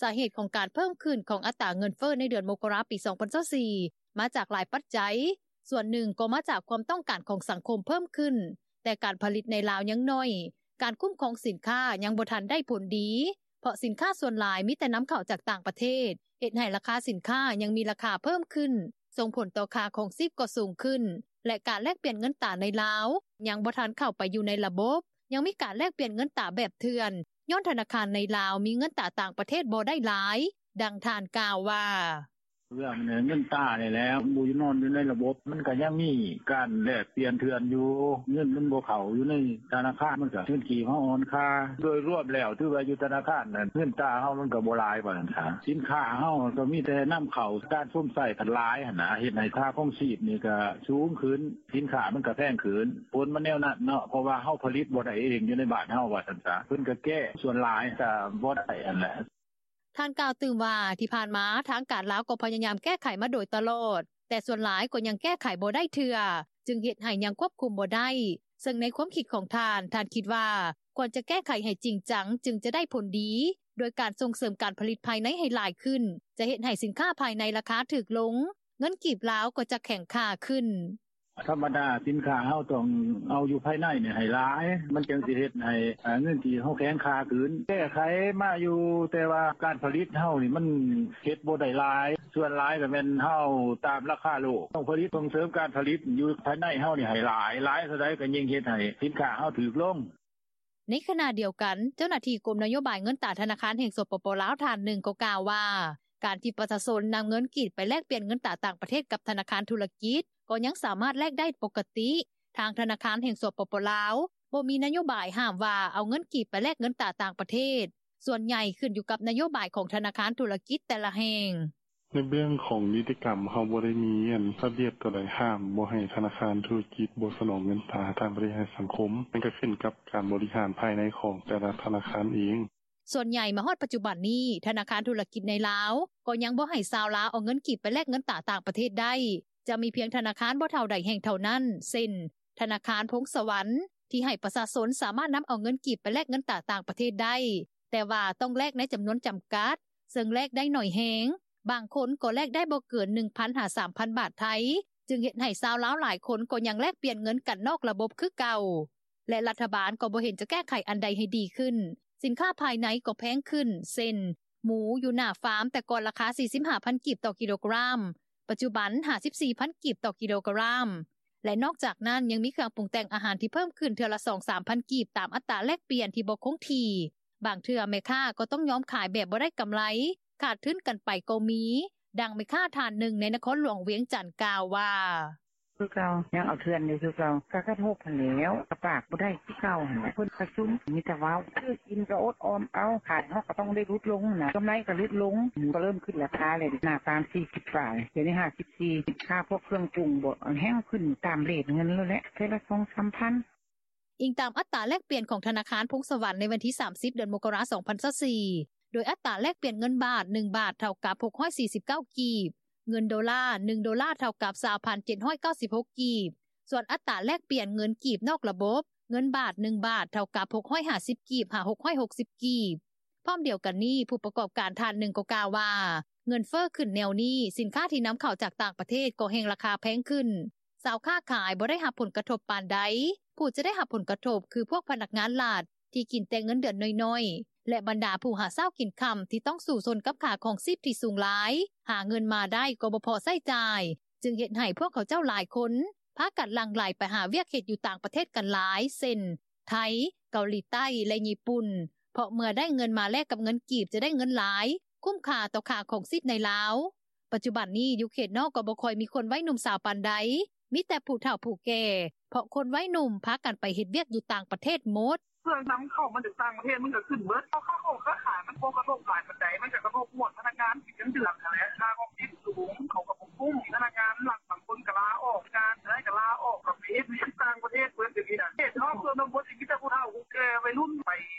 ສາເຫດຂອງການເພີ່ມຂຶ້ນຂອງອັດຕາເງິນເຟີ້ໃນເດືອນມົກກະລາ ປີສອງພັນຊາວສີ່ ມາຈາກຫຼາຍປັດໄຈ, ສ່ວນໜຶ່ງກໍມາຈາກຄວາມຕ້ອງການຂອງສັງຄົມເພີ່ມຂຶ້ນ, ແຕ່ການຜະລິດໃນລາວຍັງໜ້ອຍ, ການຄຸ້ມຄອງສິນຄ້າຍັງບໍ່ທັນໄດ້ຜົນດີ ເພາະສິນຄ້າສ່ວນຫຼາຍມີແຕ່ນຳເຂົ້າຈາກຕ່າງປະເທດ ເຮັດໃຫ້ລາຄາສິນຄ້າຍັງມີລາຄາເພີ່ມຂຶ້ນ ສົ່ງຜົນຕໍ່ຄ່າຄອງຊີບກໍສູງຂຶ້ນ ແລະ ການແລກປ່ຽນເງິນຕາໃນລາວຍັງບໍ່ທັນເຂົ້າໄປຢູ່ໃນລະບົບ ຍັງມີການແລກປ່ຽນເງິນຕາແບບເຖື່ອນ ຍ້ອນທະນາຄານໃນລາວມີເງິນຕາຕ່າງປະເທດບໍ່ໄດ້ຫຼາຍ. ດັ່ງທ່ານກ່າວວ່າ: ເລື່ອງເງິນຕານີ້ແຫຼະ ບໍ່ຢູ່ນອນຢູ່ໃນລະບົບ ມັນກໍຍັງມີການແລກປ່ຽນເຖື່ອນຢູ່ ເງິນມັນບໍ່ເຂົ້າຢູ່ໃນທະນາຄານ ມັນກໍເງິນກີບເຮົາອ່ອນຄ່າ ໂດຍລວມແລ້ວຖືວ່າຢູ່ທະນາຄານນັ້ນ ເງິນຕາເຮົາມັນກໍບໍ່ຫຼາຍປານນັ້ນ ສິນຄ້າເຮົາກໍມີແຕ່ນຳເຂົ້າ ການຊົມໃຊ້ກໍຫຼາຍຫັ້ນນະ ເຮັດໃຫ້ຄ່າຄອງຊີບນີ້ກໍສູງຂຶ້ນ ສິນຄ້າມັນກໍແພງຂຶ້ນ ຜົນມັນແນວນັ້ນເນາະ ເພາະວ່າເຮົາຜະລິດບໍ່ໄດ້ເອງຢູ່ໃນບ້ານເຮົາວ່າຊັ້ນຊະ ເພິ່ນກໍແກ້ສ່ວນຫຼາຍກໍບໍ່ໄດ້ຫັ້ນແຫຼະ. ທ່ານກ່າວຕື່ມວ່າ ທີ່ຜ່ານມາທາງການລາວກໍພະຍາຍາມແກ້ໄຂມາໂດຍຕະຫຼອດ ແຕ່ສ່ວນຫຼາຍກໍຍັງແກ້ໄຂບໍ່ໄດ້ເທື່ອ ຈຶ່ງເຮັດໃຫ້ຍັງຄວບຄຸມບໍ່ໄດ້ ເຊິ່ງໃນຄວາມຄິດຂອງທ່ານ ທ່ານຄິດວ່າຄວນຈະແກ້ໄຂໃຫ້ຈິງຈັງ ຈຶ່ງຈະໄດ້ຜົນດີ ໂດຍການສົ່ງເສີມການຜະລິດພາຍໃນໃຫ້ຫຼາຍຂຶ້ນ ຈະເຮັດໃຫ້ສິນຄ້າພາຍໃນລາຄາຖືກລົງ ເງິນກີບລາວກໍຈະແຂງຄ່າຂຶ້ນ. ທຳມະດາສິນຄ້າເຮົາຕ້ອງເອົາຢູ່ພາຍໃນນີ້ໃຫ້ຫຼາຍ ມັນຈັ່ງຊິເຮັດໃຫ້ເງິນກີບເຮົາແຂງຄ່າຂຶ້ນ ແກ້ໄຂມາຢູ່ ແຕ່ວ່າການຜະລິດເຮົານີ້ມັນເຮັດບໍ່ໄດ້ຫຼາຍ ສ່ວນຫຼາຍກໍແມ່ນເຮົາຕາມລາຄາໂລກ ຕ້ອງຜະລິດ ສົ່ງເສີມການຜະລິດຢູ່ພາຍໃນເຮົານີ້ໃຫ້ຫຼາຍ ຫຼາຍເທົ່າໃດກໍຍິ່ງເຮັດໃຫ້ສິນຄ້າເຮົາຖືກລົງ. ໃນຂະນະດຽວກັນ ເຈົ້າໜ້າທີ່ກົມນະໂຍບາຍເງິນຕາ ທະນາຄານແຫ່ງ ສປປ ລາວ ທ່ານໜຶ່ງກໍກ່າວວ່າ ການທີ່ປະຊາຊົນນຳເງິນກີບໄປແລກປ່ຽນເງິນຕາຕ່າງປະເທດກັບທະນາຄານທຸລະກິດ ກໍຍັງສາມາດແລກໄດ້ປົກກະຕິ. ທາງທະນາຄານແຫ່ງ ສປປ ລາວ ບໍ່ມີນະໂຍບາຍຫ້າມວ່າເອົາເງິນກີບໄປແລກເງິນຕາຕ່າງປະເທດ ສ່ວນໃຫຍ່ຂຶ້ນຢູ່ກັບນະໂຍບາຍຂອງທະນາຄານທຸລະກິດແຕ່ລະແຫ່ງ. ໃນເບື້ອງຂອງນິຕິກຳ ເຮົາບໍ່ໄດ້ມີລະບຽບໂຕໃດຫ້າມບໍ່ໃຫ້ທະນາຄານທຸລະກິດບໍ່ສະໜອງເງິນຕາຕ່າງປະເທດໃຫ້ສັງຄົມ ມັນກໍຂຶ້ນກັບການບໍລິຫານພາຍໃນຂອງແຕ່ລະທະນາຄານເອງ. ສ່ວນໃຫຍ່ມາຮອດປັດຈຸບັນນີ້ ທະນາຄານທຸລະກິດໃນລາວ ກໍຍັງບໍ່ໃຫ້ຊາວລາວເອົາເງິນກີບໄປແລກເງິນຕາຕ່າງປະເທດໄດ້ ຈະມີພຽງທະນາຄານບໍ່ເທົ່າໃດແຫ່ງເທົ່ານັ້ນ ເຊັ່ນ ທະນາຄານພົງສະຫວັນ ທີ່ໃຫ້ປະຊາຊົນສາມາດນຳເອົາເງິນກີບໄປແລກເງິນຕາຕ່າງປະເທດໄດ້ ແຕ່ວ່າຕ້ອງແລກໃນຈຳນວນຈຳກັດ ເຊິ່ງແລກໄດ້ໜ້ອຍແຮງ ບາງຄົນກໍແລກໄດ້ບໍ່ເກີນ ໜຶ່ງພັນ ຫາ ສາມພັນບາດໄທ ຈຶ່ງເຮັດໃຫ້ຊາວລາວຫຼາຍຄົນກໍຍັງແລກປ່ຽນເງິນກັນນອກລະບົບຄືເກົ່າ ແລະ ລັດຖະບານກໍບໍ່ເຫັນຈະແກ້ໄຂອັນໃດໃຫ້ດີຂຶ້ນ. ສິນຄ້າພາຍໃນກໍແພງຂຶ້ນ ເຊັ່ນ ໝູຢູ່ໜ້າຟາມ ແຕ່ກ່ອນລາຄາ ສີ່ສິບຫ້າພັນກີບຕໍ່ກິໂລກຣາມ ປັດຈຸບັນ ຫ້າສິບສີ່ພັນກີບຕໍ່ກິໂລກຣາມ ແລະ ນອກຈາກນັ້ນຍັງມີເຄື່ອງປຸງແຕ່ງອາຫານທີ່ເພີ່ມຂຶ້ນເທື່ອລະ ສອງສາມພັນກີບ ຕາມອັດຕາແລກປ່ຽນທີ່ບໍ່ຄົງທີ່. ບາງເທື່ອແມ່ຄ້າກໍຕ້ອງຍອມຂາຍແບບບໍ່ໄດ້ກຳໄລ ຂາດທຶນກັນໄປກໍມີ. ດັ່ງແມ່ຄ້າທ່ານໜຶ່ງໃນນະຄອນຫຼວງວຽງຈັນກ່າວວ່າ: ຄືເກົ່າ ຍັງເອົາເຖື່ອນຢູ່ຄືເກົ່າ ກໍກະທົບຫັ້ນແຫຼ້ວ ກໍປາກບໍ່ໄດ້ຄືເກົ່າຫັ້ນແຫຼະ ເພິ່ນປະຊຸມ ມີແຕ່ເວົ້າ ຊື້ກິນກໍອົດອອມເອົາ ຂາຍເຮົາກໍຕ້ອງໄດ້ຫຼຸດລົງນະ ກຳໄລກໍຫຼຸດລົງ ໝູກໍເລີ່ມຂຶ້ນລາຄາແລ້ວ ໜ້າຟາມ ສີ່ສິບປາຍ ດຽວນີ້ ຫ້າສິບສີ່ ສິນຄ້າພວກເຄື່ອງປຸງບໍ່ ແຮ່ງຂຶ້ນຕາມເຣດເງິນໂລດແຫຼະ ເທື່ອລະ ສອງສາມພັນ. ອີງຕາມອັດຕາແລກປ່ຽນຂອງທະນາຄານພົງສະຫວັນໃນວັນທີ ສາມສິບ ເດືອນມົກກະລາ ສອງພັນຊາວສີ່ ໂດຍອັດຕາແລກປ່ຽນເງິນບາດ ໜຶ່ງບາດ ເທົ່າກັບ ຫົກຮ້ອຍສີ່ສິບເກົ້າກີບ, ເງິນໂດລາ ໜຶ່ງໂດລາ ເທົ່າກັບ ຊາວພັນເຈັດຮ້ອຍເກົ້າສິບຫົກກີບ, ສ່ວນອັດຕາແລກປ່ຽນເງິນກີບນອກລະບົບ ເງິນບາດ ໜຶ່ງບາດ ເທົ່າກັບ ຫົກຮ້ອຍຫ້າສິບກີບ ຫາ ຫົກຮ້ອຍຫົກສິບກີບ. ພ້ອມດຽວກັນນີ້ ຜູ້ປະກອບການທ່ານໜຶ່ງກໍກ່າວວ່າ ເງິນເຟີ້ຂຶ້ນແນວນີ້ ສິນຄ້າທີ່ນຳເຂົ້າຈາກຕ່າງປະເທດກໍແຮ່ງລາຄາແພງຂຶ້ນ. ຊາວຄ້າຂາຍບໍ່ໄດ້ຮັບຜົນກະທົບປານໃດ, ຜູ້ຈະໄດ້ຮັບຜົນກະທົບຄືພວກພະນັກງານລັດທີ່ກິນແຕ່ເງິນເດືອນນ້ອຍໆ ແລະ ບັນດາຜູ້ຫາເຊົ້າກິນຄ່ຳທີ່ຕ້ອງສູ້ຊົນກັບຄ່າຄອງຊີບທີ່ສູງຫຼາຍ, ຫາເງິນມາໄດ້ກໍບໍ່ພໍໃຊ້ຈ່າຍ, ຈຶ່ງເຮັດໃຫ້ພວກເຂົາເຈົ້າຫຼາຍຄົນພາກັນຫຼັ່ງໄຫຼໄປຫາວຽກເຮັດຢູ່ຕ່າງປະເທດກັນຫຼາຍ ເຊັ່ນ ໄທ, ເກົາຫຼີໃຕ້ ແລະ ຍີ່ປຸ່ນ ເພາະເມື່ອໄດ້ເງິນມາແລກກັບເງິນກີບຈະໄດ້ເງິນຫຼາຍ, ຄຸ້ມຄ່າຕໍ່ຄ່າຄອງຊີບໃນລາວ. ປັດຈຸບັນນີ້ຢູ່ເຂດນອກກໍບໍ່ຄ່ອຍມີຄົນໄວໜຸ່ມສາວປານໃດ, ມີແຕ່ຜູ້ເຖົ້າຜູ້ແກ່, ເພາະຄົນໄວໜຸ່ມພາກັນໄປເຮັດວຽກຢູ່ຕ່າງປະເທດໝົດ. ເຄື່ອງນຳເຂົ້າມາຈາກຕ່າງປະເທດມັນກໍຂຶ້ນເບິດ, ເພາະຄ່າຂອງຄ່າຂາຍມັນບໍ່ກະທົບຫຼາຍປານໃດ, ມັນກໍກະທົບໝົດ, ພະນັກງານກິນເງິນເດືອນຫັ້ນແຫຼະ, ຄ່າຄອງຊີບສູງ, ເຂົາກໍບໍ່ກຸ້ມ, ພະນັກງານລັດບາງຄົນກໍລາອອກ, ການໄດ້ກໍລາອອກ, ກໍໄປເຮັດວຽກຕ່າງປະເທດເບິດ, ດຽວນີ້ນະ ເຂດນອກສ່ວນນະບົດນີ້ມີແຕ່ຜູ້ເຖົ້າຜູ້ແກ່, ໄວໜຸ່ມໄປ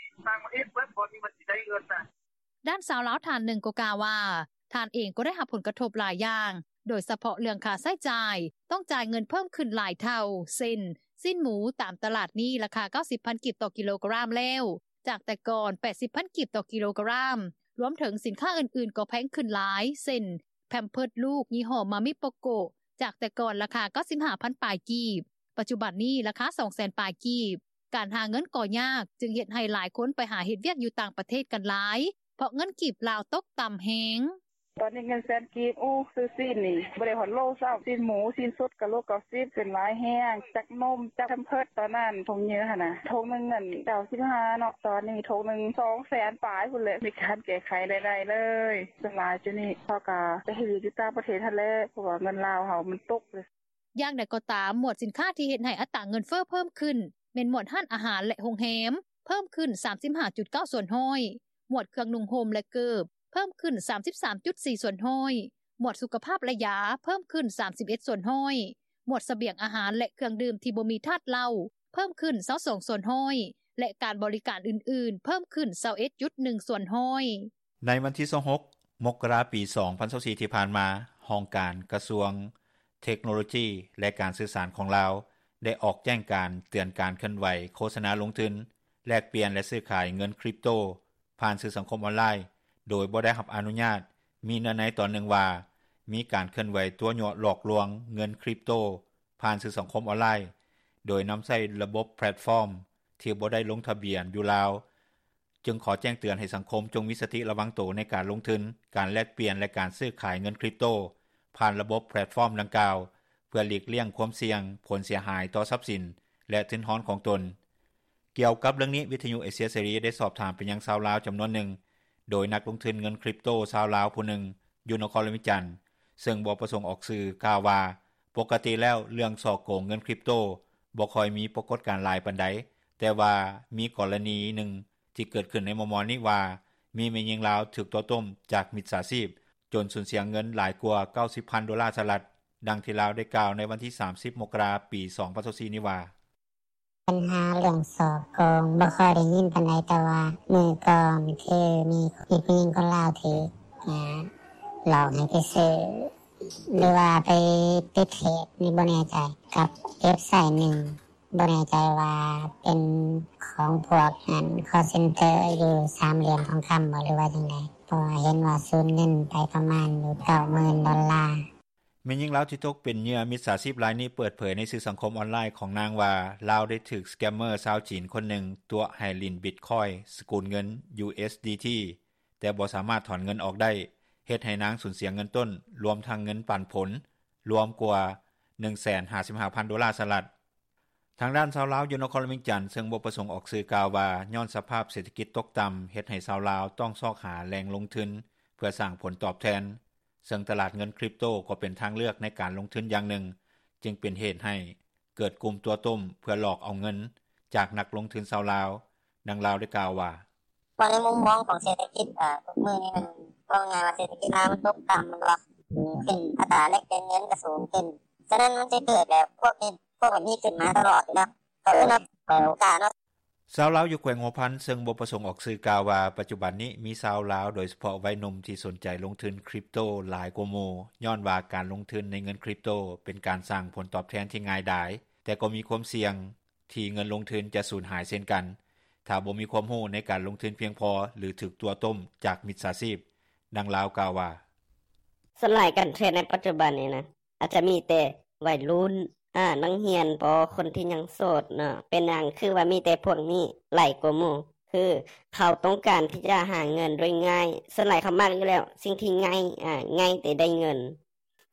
ຕ່າງປະເທດເບິດ, ບ່ອນທີ່ມັນຊິໄດ້ເງິນນະ. ດ້ານຊາວລາວທ່ານໜຶ່ງກໍກ່າວວ່າ ທ່ານເອງກໍໄດ້ຮັບຜົນກະທົບຫຼາຍຢ່າງ, ໂດຍສະເພາະເລື່ອງຄ່າໃຊ້ຈ່າຍ, ຕ້ອງຈ່າຍເງິນເພີ່ມຂຶ້ນຫຼາຍເທົ່າ, ເຊັ່ນ ຊີ້ນໝູຕາມຕະຫຼາດນີ້ລາຄາ ເກົ້າສິບພັນກີບຕໍ່ກິໂລກຣາມແລ້ວ, ຈາກແຕ່ກ່ອນ ແປດສິບພັນກີບຕໍ່ກິໂລກຣາມ, ລວມເຖິງສິນຄ້າອື່ນໆກໍແພງຂຶ້ນຫຼາຍ, ເຊັ່ນ ແພມເພີດລູກຍີ່ຫໍ້ມາມິໂປໂກະ, ຈາກແຕ່ກ່ອນລາຄາ ເກົ້າສິບຫ້າພັນປາຍກີບ, ປັດຈຸບັນນີ້ລາຄາ ສອງແສນປາຍກີບ. ການຫາເງິນກໍຍາກ ຈຶ່ງເຮັດໃຫ້ຫຼາຍຄົນໄປຫາເຮັດວຽກຢູ່ຕ່າງປະເທດກັນຫຼາຍ ເພາະເງິນກີບລາວຕົກຕໍ່າແຮງ. ຕອນນີ້ເງິນແສນກີບ ໂອ້ ຊື້ຊີ້ນນີ້ບໍ່ໄດ້ຮອດໂລຊ້ຳ ຊີ້ນໝູຊີ້ນສົດກໍໂລເກົ້າສິບ ຂຶ້ນຫຼາຍແຮງ ຈັກນົມຈັກແພມເພີດ ຕອນນັ້ນຖົງເຫຍື້ອຫັ້ນນະ ຖົງໜຶ່ງນັ້ນເກົ້າສິບຫ້າເນາະ ຕອນນີ້ຖົງໜຶ່ງສອງແສນປາຍພຸ້ນແຫຼະ ມີການແກ້ໄຂໃດໆເລີຍ. ສ່ວນຫຼາຍຈຸນີ້ເຂົາກໍໄປເຮັດວຽກຢູ່ຕ່າງປະເທດຫັ້ນແຫຼະ ເພາະວ່າເງິນລາວເຮົາມັນຕົກ. ຢ່າງໃດກໍຕາມ ໝວດສິນຄ້າທີ່ເຮັດໃຫ້ອັດຕາເງິນເຟີ້ເພີ່ມຂຶ້ນ ແມ່ນໝວດຮ້ານອາຫານ ແລະ ໂຮງແຮມ ເພີ່ມຂຶ້ນສາມສິບຫ້າຈຸດເກົ້າສ່ວນຮ້ອຍ, ໝວດເຄື່ອງນຸ່ງຫົ່ມ ແລະ ເກີບ ເພີ່ມຂຶ້ນສາມສິບສາມຈຸດສີ່ສ່ວນຮ້ອຍ, ໝວດສຸຂະພາບ ແລະ ຢາ ເພີ່ມຂຶ້ນສາມສິບເອັດສ່ວນຮ້ອຍ, ໝວດສະບຽງອາຫານ ແລະ ເຄື່ອງດື່ມທີ່ບໍ່ມີທາດເຫຼົ້າ ເພີ່ມຂຶ້ນຊາວສອງສ່ວນຮ້ອຍ ແລະ ການບໍລິການອື່ນໆ ເພີ່ມຂຶ້ນຊາວເອັດຈຸດໜຶ່ງສ່ວນຮ້ອຍ. ໃນວັນທີຊາວຫົກ ມົກກະລາ ປີສອງພັນຊາວສີ່ ທີ່ຜ່ານມາ, ຫ້ອງການກະຊວງເທັກໂນໂລຈີ ແລະ ການສື່ສານຂອງລາວ ໄດ້ອອກແຈ້ງການເຕືອນການເຄື່ອນໄຫວໂຄສະນາລົງທຶນ, ແລກປ່ຽນ ແລະ ຊື້ຂາຍເງິນຄຣິບໂຕ ຜ່ານສື່ສັງຄົມອອນລາຍ ໂດຍບໍ່ໄດ້ຮັບອະນຸຍາດ. ມີເນື້ອໃນຕອນໜຶ່ງວ່າ ມີການເຄື່ອນໄຫວຕົວະຍົວະຫຼອກລວງເງິນຄຣິບໂຕ ຜ່ານສື່ສັງຄົມອອນລາຍ ໂດຍນຳໃຊ້ລະບົບແພລດຟອມທີ່ບໍ່ໄດ້ລົງທະບຽນຢູ່ລາວ, ຈຶ່ງຂໍແຈ້ງເຕືອນໃຫ້ສັງຄົມຈົ່ງມີສະຕິລະວັງໂຕໃນການລົງທຶນ, ການແລກປ່ຽນ ແລະ ການຊື້ຂາຍເງິນຄຣິບໂຕ ຜ່ານລະບົບແພລດຟອມດັ່ງກ່າວ ເພື່ອຫຼີກລ່ຽງຄວາມສ່ຽງ, ຜົນເສຍຫາຍຕໍ່ຊັບສິນ ແລະ ທຶນຮອນຂອງຕົນ. ກ່ຽວກັບເລື່ອງນີ້, ວິທະຍຸເອເຊຍເສລີໄດ້ສອບຖາມໄປຍັງຊາວລາວຈຳນວນໜຶ່ງ, ໂດຍນັກລົງທຶນເງິນຄຣິບໂຕຊາວລາວຜູ້ໜຶ່ງຢູ່ນະຄອນຫຼວງວຽງຈັນ ເຊິ່ງບໍ່ປະສົງອອກຊື່ ກ່າວວ່າ ປົກກະຕິແລ້ວເລື່ອງສໍ້ໂກງເງິນຄຣິບໂຕບໍ່ຄ່ອຍມີປາກົດການຫຼາຍປານໃດ, ແຕ່ວ່າມີກໍລະນີໜຶ່ງທີ່ເກີດຂຶ້ນໃນມໍ່ໆນີ້ວ່າ ມີແມ່ຍິງລາວຖືກຕົວະຕົ້ມຈາກມິດສາຊີບ ຈົນສູນເສຍເງິນຫຼາຍກວ່າເກົ້າສິບພັນໂດລາສະຫະລັດ, ດັ່ງທີ່ລາວໄດ້ກ່າວໃນວັນທີສາມສິບ ມົກກະລາ ປີສອງພັນຊາວສີ່ນີ້ວ່າ. ບັນຫາເລື່ອງສໍ້ໂກງບໍ່ຄ່ອຍໄດ້ຍິນປານໃດ, ແຕ່ວ່າມື້ກ່ອນຄືມີຜູ້ຍິງຄົນລາວຖືກ ອາ ຫຼອກໃຫ້ໄປຊື້ ຫຼືວ່າໄປ ໄປເທຣດນີ້ບໍ່ແນ່ໃຈ ກັບເວັບໄຊໜຶ່ງ ບໍ່ແນ່ໃຈວ່າເປັນຂອງພວກ ອັນ ຄອລເຊັນເຕີຢູ່ສາມຫຼ່ຽມທອງຄຳບໍ ຫຼືວ່າຈັ່ງໃດ ເພາະວ່າເຫັນວ່າສູນເງິນໄປປະມານຢູ່ເກົ້າໝື່ນໂດລາ. ແມ່ຍິງລາວທີ່ຕົກເປັນເຫຍື່ອມິດສາຊີບລາຍນີ້ເປີດເຜີຍໃນສື່ສັງຄົມອອນລາຍຂອງນາງວ່າ ລາວໄດ້ຖືກສະແກມເມີຊາວຈີນຄົນໜຶ່ງຕົວະໃຫ້ຫຼິ້ນບິດຄອຍສະກຸນເງິນ USDT ແຕ່ບໍ່ສາມາດຖອນເງິນອອກໄດ້, ເຮັດໃຫ້ນາງສູນເສຍເງິນຕົ້ນ ລວມທັງເງິນປັນຜົນ ລວມກວ່າໜຶ່ງແສນຫ້າສິບຫ້າພັນໂດລາສະຫະລັດ. ທາງດ້ານຊາວລາວຢູ່ນະຄອນຫຼວງວຽງຈັນ ເຊິ່ງບໍ່ປະສົງອອກຊື່ ກ່າວວ່າ ຍ້ອນສະພາບເສດຖະກິດຕົກຕ່ຳ ເຮັດໃຫ້ຊາວລາວຕ້ອງຊອກຫາແຫຼ່ງລົງທຶນເພື່ອສ້າງຜົນຕອບແທນ, ເຊິ່ງຕະຫຼາດເງິນຄຣິບໂຕກໍເປັນທາງເລືອກໃນການລົງທຶນຢ່າງໜຶ່ງ, ຈຶ່ງເປັນເຫດໃຫ້ເກີດກຸ່ມຕົວະຕົ້ມເພື່ອຫຼອກເອົາເງິນຈາກນັກລົງທຶນຊາວລາວ, ດັ່ງລາວໄດ້ກ່າວວ່າ. ເພາະໃນມຸມມອງຂອງເສດຖະກິດ ອາ ທຸກມື້ນີ້ມັນ ເວົ້າງ່າຍວ່າເສດຖະກິດລາວມັນຕົກຕ່ຳແມ່ນບໍ່ ຂຶ້ນ ອັດຕາແລກປ່ຽນເງິນກໍສູງຂຶ້ນ, ສະນັ້ນມັນຈະເກີດແບບພວກນີ້ ພວກແບບນີ້ຂຶ້ນມາຕະຫຼອດຢູ່ແລ້ວ ເຂົາເອີ້ນວ່າເປີດໂອກາດເນາະ. ຊາວລາວຢູ່ແຂວງຫົວພັນ ເຊິ່ງບໍ່ປະສົງອອກຊື່ ກ່າວວ່າ ປັດຈຸບັນນີ້ມີຊາວລາວ ໂດຍສະເພາະໄວໜຸ່ມທີ່ສົນໃຈລົງທຶນຄຣິບໂຕຫຼາຍກວ່າໝູ່, ຍ້ອນວ່າການລົງທຶນໃນເງິນຄຣິບໂຕເປັນການສ້າງຜົນຕອບແທນທີ່ງ່າຍດາຍ, ແຕ່ກໍມີຄວາມສ່ຽງ ທີ່ເງິນລົງທຶນຈະສູນຫາຍເຊັ່ນກັນ ຖ້າບໍ່ມີຄວາມຮູ້ໃນການລົງທຶນພຽງພໍ ຫຼື ຖືກຕົວະຕົ້ມຈາກມິດສາຊີບ, ດັ່ງລາວກ່າວວ່າ. ສ່ວນຫຼາຍການເທຣດໃນປັດຈຸບັນນີ້ນະ ອາດຈະມີແຕ່ໄວລຸ້ນ ອາ ນັກຮຽນບໍ ຄົນທີ່ຍັງໂສດເນາະ, ເປັນຫຍັງຄືວ່າມີແຕ່ພວກນີ້ຫຼາຍກວ່າໝູ່? ຄືເຂົາຕ້ອງການທີ່ຈະຫາເງິນໂດຍງ່າຍ, ສ່ວນຫຼາຍເຂົາມັກຢູ່ແລ້ວ ສິ່ງທີ່ງ່າຍ ອາ ງ່າຍແຕ່ໄດ້ເງິນ.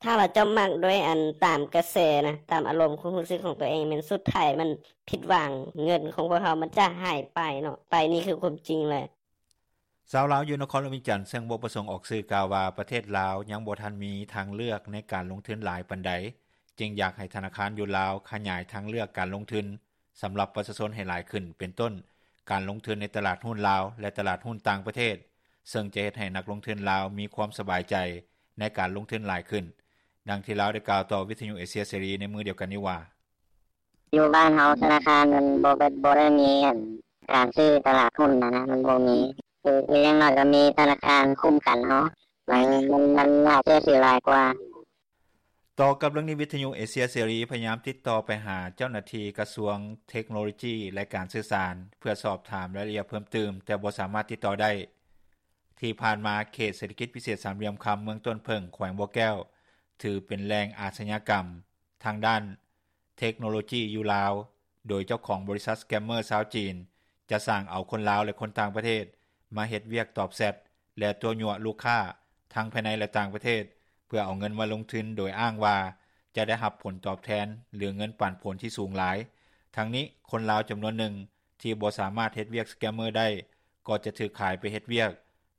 ຖ້າວ່າເຈົ້າມັກດ້ວຍອັນຕາມກະແສນະ ຕາມອາລົມຄວາມຮູ້ສຶກຂອງຕົວເອງ ແມ່ນສຸດທ້າຍມັນຜິດຫວັງ, ເງິນຂອງພວກເຮົາມັນຈະຫາຍໄປເນາະ, ໄປ ນີ້ຄືຄວາມຈິງເລີຍ. ຊາວລາວຢູ່ນະຄອນຫຼວງວຽງຈັນ ເຊິ່ງບໍ່ປະສົງອອກຊື່ ກ່າວວ່າ ປະເທດລາວຍັງບໍ່ທັນມີທາງເລືອກໃນການລົງທຶນຫຼາຍປານໃດ, ຈຶ່ງຢາກໃຫ້ທະນາຄານຢູ່ລາວຂະຫຍາຍທາງເລືອກການລົງທຶນ ສຳລັບປະຊາຊົນໃຫ້ຫຼາຍຂຶ້ນ, ເປັນຕົ້ນ ການລົງທຶນໃນຕະຫຼາດຮຸ້ນລາວ ແລະ ຕະຫຼາດຮຸ້ນຕ່າງປະເທດ, ເຊິ່ງຈະເຮັດໃຫ້ນັກລົງທຶນລາວມີຄວາມສະບາຍໃຈໃນການລົງທຶນຫຼາຍຂຶ້ນ, ດັ່ງທີ່ລາວໄດ້ກ່າວຕໍ່ວິທະຍຸເອເຊຍເສລີໃນມື້ດຽວກັນນີ້ວ່າ. ຢູ່ບ້ານເຮົາທະນາຄານມັນບໍ່ ບໍ່ໄດ້ມີ ອັນ ການຊື້ຕະຫຼາດຮຸ້ນຫັ້ນນະ ມັນບໍ່ມີ, ຄື ຄືຢ່າງໜ້ອຍກໍມີທະນາຄານຄຸ້ມກັນເຮົາ, ມັນ ມັນ ມັນໜ້າເຊື່ອຖືຫຼາຍກວ່າ. ຕໍ່ກັບເລື່ອງນີ້, ວິທະຍຸເອເຊຍເສລີພະຍາຍາມຕິດຕໍ່ໄປຫາເຈົ້າໜ້າທີ່ກະຊວງເທັກໂນໂລຈີ ແລະ ການສື່ສານ ເພື່ອສອບຖາມລາຍລະອຽດເພີ່ມຕື່ມ, ແຕ່ບໍ່ສາມາດຕິດຕໍ່ໄດ້. ທີ່ຜ່ານມາ, ເຂດເສດຖະກິດພິເສດສາມຫຼ່ຽມຄຳ ເມືອງຕົ້ນເຜິ້ງ ແຂວງບໍ່ແກ້ວ ຖືເປັນແຫຼ່ງອາຊະຍາກຳທາງດ້ານເທັກໂນໂລຈີຢູ່ລາວ, ໂດຍເຈົ້າຂອງບໍລິສັດສະແກມເມີ້ຣ໌ຊາວຈີນ ຈະສ້າງເອົາຄົນລາວ ແລະ ຄົນຕ່າງປະເທດ ມາເຮັດວຽກຕອບແຊັດ ແລະ ຕົວະຍົວະລູກຄ້າ ທັງພາຍໃນ ແລະ ຕ່າງປະເທດ ເພື່ອເອົາເງິນມາລົງທຶນ ໂດຍອ້າງວ່າຈະໄດ້ຮັບຜົນຕອບແທນ ຫຼື ເງິນປັນຜົນທີ່ສູງຫຼາຍ. ທັງນີ້, ຄົນລາວຈຳນວນໜຶ່ງທີ່ບໍ່ສາມາດເຮັດວຽກສະແກມເມີ້ຣ໌ໄດ້ ກໍຈະຖືກຂາຍໄປເຮັດວຽກ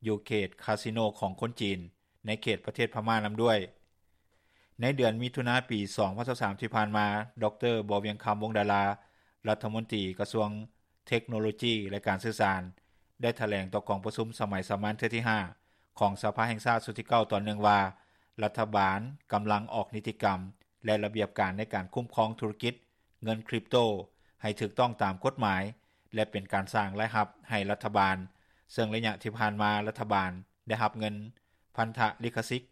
ຢູ່ເຂດຄາສິໂນຂອງຄົນຈີນ ໃນເຂດປະເທດພະມ້ານຳດ້ວຍ. ໃນເດືອນມິຖຸນາ ປີສອງພັນຊາວສາມ ທີ່ຜ່ານມາ, ດຣ. ບໍ່ວຽງຄຳ ວົງດາລາ, ລັດຖະມົນຕີກະຊວງເທັກໂນໂລຈີ ແລະ ການສື່ສານ ໄດ້ຖະແຫຼງຕໍ່ກອງປະຊຸມສະໄໝສາມັນເທື່ອທີຫ້າ ຂອງສະພາແຫ່ງຊາດຊຸດທີເກົ້າ ຕອນໜຶ່ງວ່າ ລັດຖະບານກຳລັງອອກນິຕິກຳ ແລະ ລະບຽບການໃນການຄຸ້ມຄອງທຸລະກິດເງິນຄຣິບໂຕ ໃຫ້ຖືກຕ້ອງຕາມກົດໝາຍ ແລະ ເປັນການສ້າງລາຍຮັບໃຫ້ລັດຖະບານ, ເຊິ່ງໄລຍະທີ່ຜ່ານມາລັດຖະບານໄດ້ຮັບເງິນພັນທະລິຂະສິດ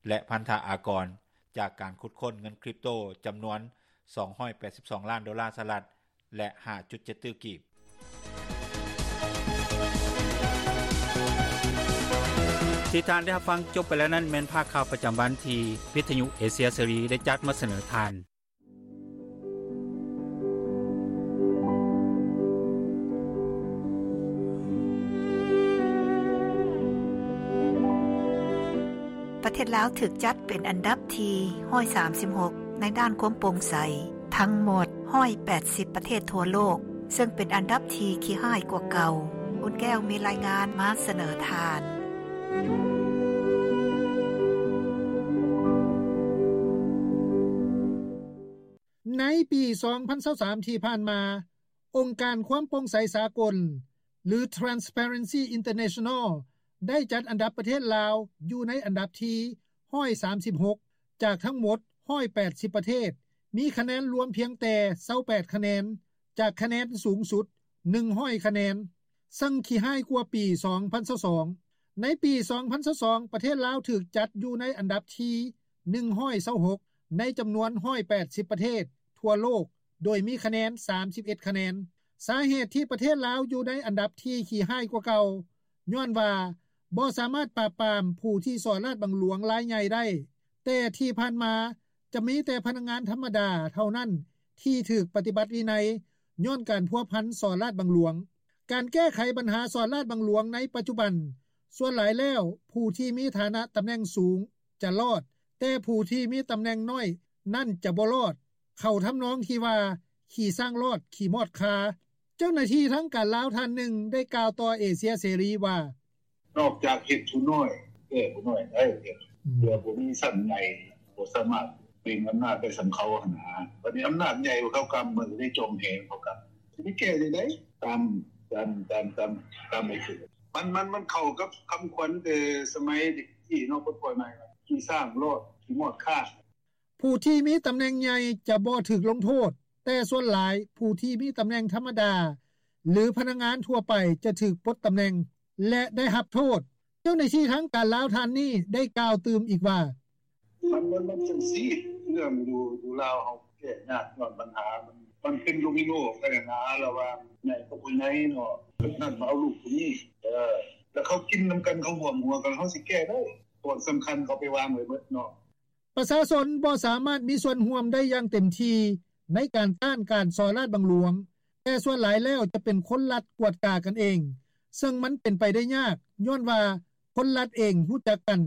ແລະ ພັນທະອາກອນ ຈາກການຂຸດຄົ້ນເງິນຄຣິບໂຕຈຳນວນສອງຮ້ອຍແປດສິບສອງລ້ານໂດລາສະຫະລັດ ແລະ ຫ້າຈຸດເຈັດຕື້ກີບ. ທີ່ທ່ານໄດ້ຮັບຟັງຈົບໄປແລ້ວນັ້ນ ແມ່ນພາກຂ່າວປະຈຳວັນທີ່ວິທະຍຸເອເຊຍເສລີໄດ້ຈັດມາສະເໜີທ່ານ. ປະເທດລາວຖືກຈັດເປັນອັນດັບທີຮ້ອຍສາມສິບຫົກ ໃນດ້ານຄວາມໂປ່ງໃສ ທັງໝົດຮ້ອຍແປດສິບປະເທດທົ່ວໂລກ, ເຊິ່ງເປັນອັນດັບທີ່ຂີ້ຮ້າຍກວ່າເກົ່າ. ອຸ່ນແກ້ວມີລາຍງານມາສະເໜີທ່ານ. ໃນປີສອງພັນຊາວສາມທີ່ຜ່ານມາ, ອົງການຄວາມໂປ່ງໃສສາກົນ ຫຼື Transparency International ໄດ້ຈັດອັນດັບປະເທດລາວຢູ່ໃນອັນດັບທີຮ້ອຍສາມສິບຫົກ ຈາກທັງໝົດຮ້ອຍແປດສິບປະເທດ, ມີຄະແນນລວມພຽງແຕ່ຊາວແປດຄະແນ ຈາກຄະແນນສູງສຸດໜຶ່ງຮ້ອຍຄະແນນ, ເຊິ່ງຂີ້ຮ້າຍກວ່າປີສອງພັນຊາວສອງ. ໃນປີສອງພັນຊາວສອງ ປະເທດລາວຖືກຈັດຢູ່ໃນອັນດັບທີໜຶ່ງຮ້ອຍຊາວຫົກ ໃນຈຳນວນຮ້ອຍແປດສິບປະເທດທົ່ວໂລກ, ໂດຍມີຄະແນນສາມສິບເອັດຄະແນນ. ສາເຫດທີ່ປະເທດລາວຢູ່ໃນອັນດັບທີ່ຂີ້ຮ້າຍກວ່າເກົ່າ ຍ້ອນວ່າບໍ່ສາມາດປາບປາມຜູ້ທີ່ສໍ້ລາດບັງຫຼວງລາຍໃຫຍ່ໄດ້. ແຕ່ທີ່ຜ່ານມາຈະມີແຕ່ພະນັກງານທຳມະດາເທົ່ານັ້ນທີ່ຖືກປະຕິບັດວິໄນ ຍ້ອນການພົວພັນສໍ້ລາດບັງຫຼວງ. ການແກ້ໄຂບັນຫາສໍ້ລາດບັງຫຼວງໃນປັດຈຸບັນ, ສ່ວນຫຼາຍແລ້ວຜູ້ທີ່ມີຖານະຕຳແໜ່ງສູງຈະລອດ, ແຕ່ຜູ້ທີ່ມີຕຳແໜ່ງນ້ອຍນັ້ນຈະບໍ່ລອດ, ເຂົ້າທຳນອງທີ່ວ່າ ຂີ້ຊ້າງລອດ ຂີ້ມອດຄາ. ເຈົ້າໜ້າທີ່ທາງການລາວທ່ານໜຶ່ງໄດ້ກ່າວຕໍ່ເອເຊຍເສລີວ່າ, ນອກຈາກເຮັດຜູ້ນ້ອຍແກ້ຜູ້ນ້ອຍໄດ້, ເທື່ອບໍ່ມີຊັ້ນໃຫຍ່ ບໍ່ສາມາດເປັນອຳນາດໄດ້ສ່ຳເຂົາຫັ້ນນາ. ບັດນີ້ອຳນາດໃຫຍ່ກວ່າເຂົາກຳ ມັນກໍໄດ້ຈ່ອມແຮງເຂົາກຳ. ຊິໄປແກ້ຈັ່ງໃດ? ຕາມ ຕາມ ຕາມ ຕາມ ຕາມໃນເຂດ. ມັນ ມັນ ມັນເຂົ້າກັບຄຳຂວັນແຕ່ສະໄໝເດັກກີ້ເນາະ, ປົດປ່ອຍໃໝ່, ຂີ້ຊ້າງລອດ ຂີ້ມອດຄາ. ຜູ້ທີ່ມີຕຳແໜ່ງໃຫຍ່ຈະບໍ່ຖືກລົງໂທດ, ແຕ່ສ່ວນຫຼາຍຜູ້ທີ່ມີຕຳແໜ່ງທຳມະດາ ຫຼື ພະນັກງານທົ່ວໄປຈະຖືກປົດຕຳແໜ່ງ ແລະ ໄດ້ຮັບໂທດ. ເຈົ້າໜ້າທີ່ທາງການລາວທ່ານນີ້ໄດ້ກ່າວຕື່ມອີກວ່າ, ມັນ ມັນ ມັນຈັ່ງຊີ້, ເລື່ອງຢູ່ ຢູ່ລາວເຮົາແກ້ຍາກ ຍ້ອນບັນຫາມັນ ມັນເປັນໂດມິໂນໄປຫັ້ນນາ, ລະຫວ່າງໃຫຍ່ກັບຜູ້ໃຫຍ່ເນາະ, ເພິ່ນນັ້ນມາເອົາລູກຜູ້ນີ້, ເອີ ແລ້ວເຂົາກິນນຳກັນ ເຂົາຮ່ວມຫົວກັນ ເຮົາຊິແກ້ໄດ້, ບ່ອນສຳຄັນເຂົາໄປວາງໄວ້ເບິດເນາະ. ປະຊາຊົນບໍ່ສາມາດມີສ່ວນຮ່ວມໄດ້ຢ່າງເຕັມທີ່ໃນການຕ້ານການສໍ້ລາດບັງຫຼວງ, ແຕ່ສ່ວນຫຼາຍແລ້ວຈະເປັນຄົນລັດກວດກາກັນເອງ, ເຊິ່ງມັນເປັນໄປໄດ້ຍາກ ຍ້ອນວ່າຄົນລັດເອງຮູ້ຈັກກັນ.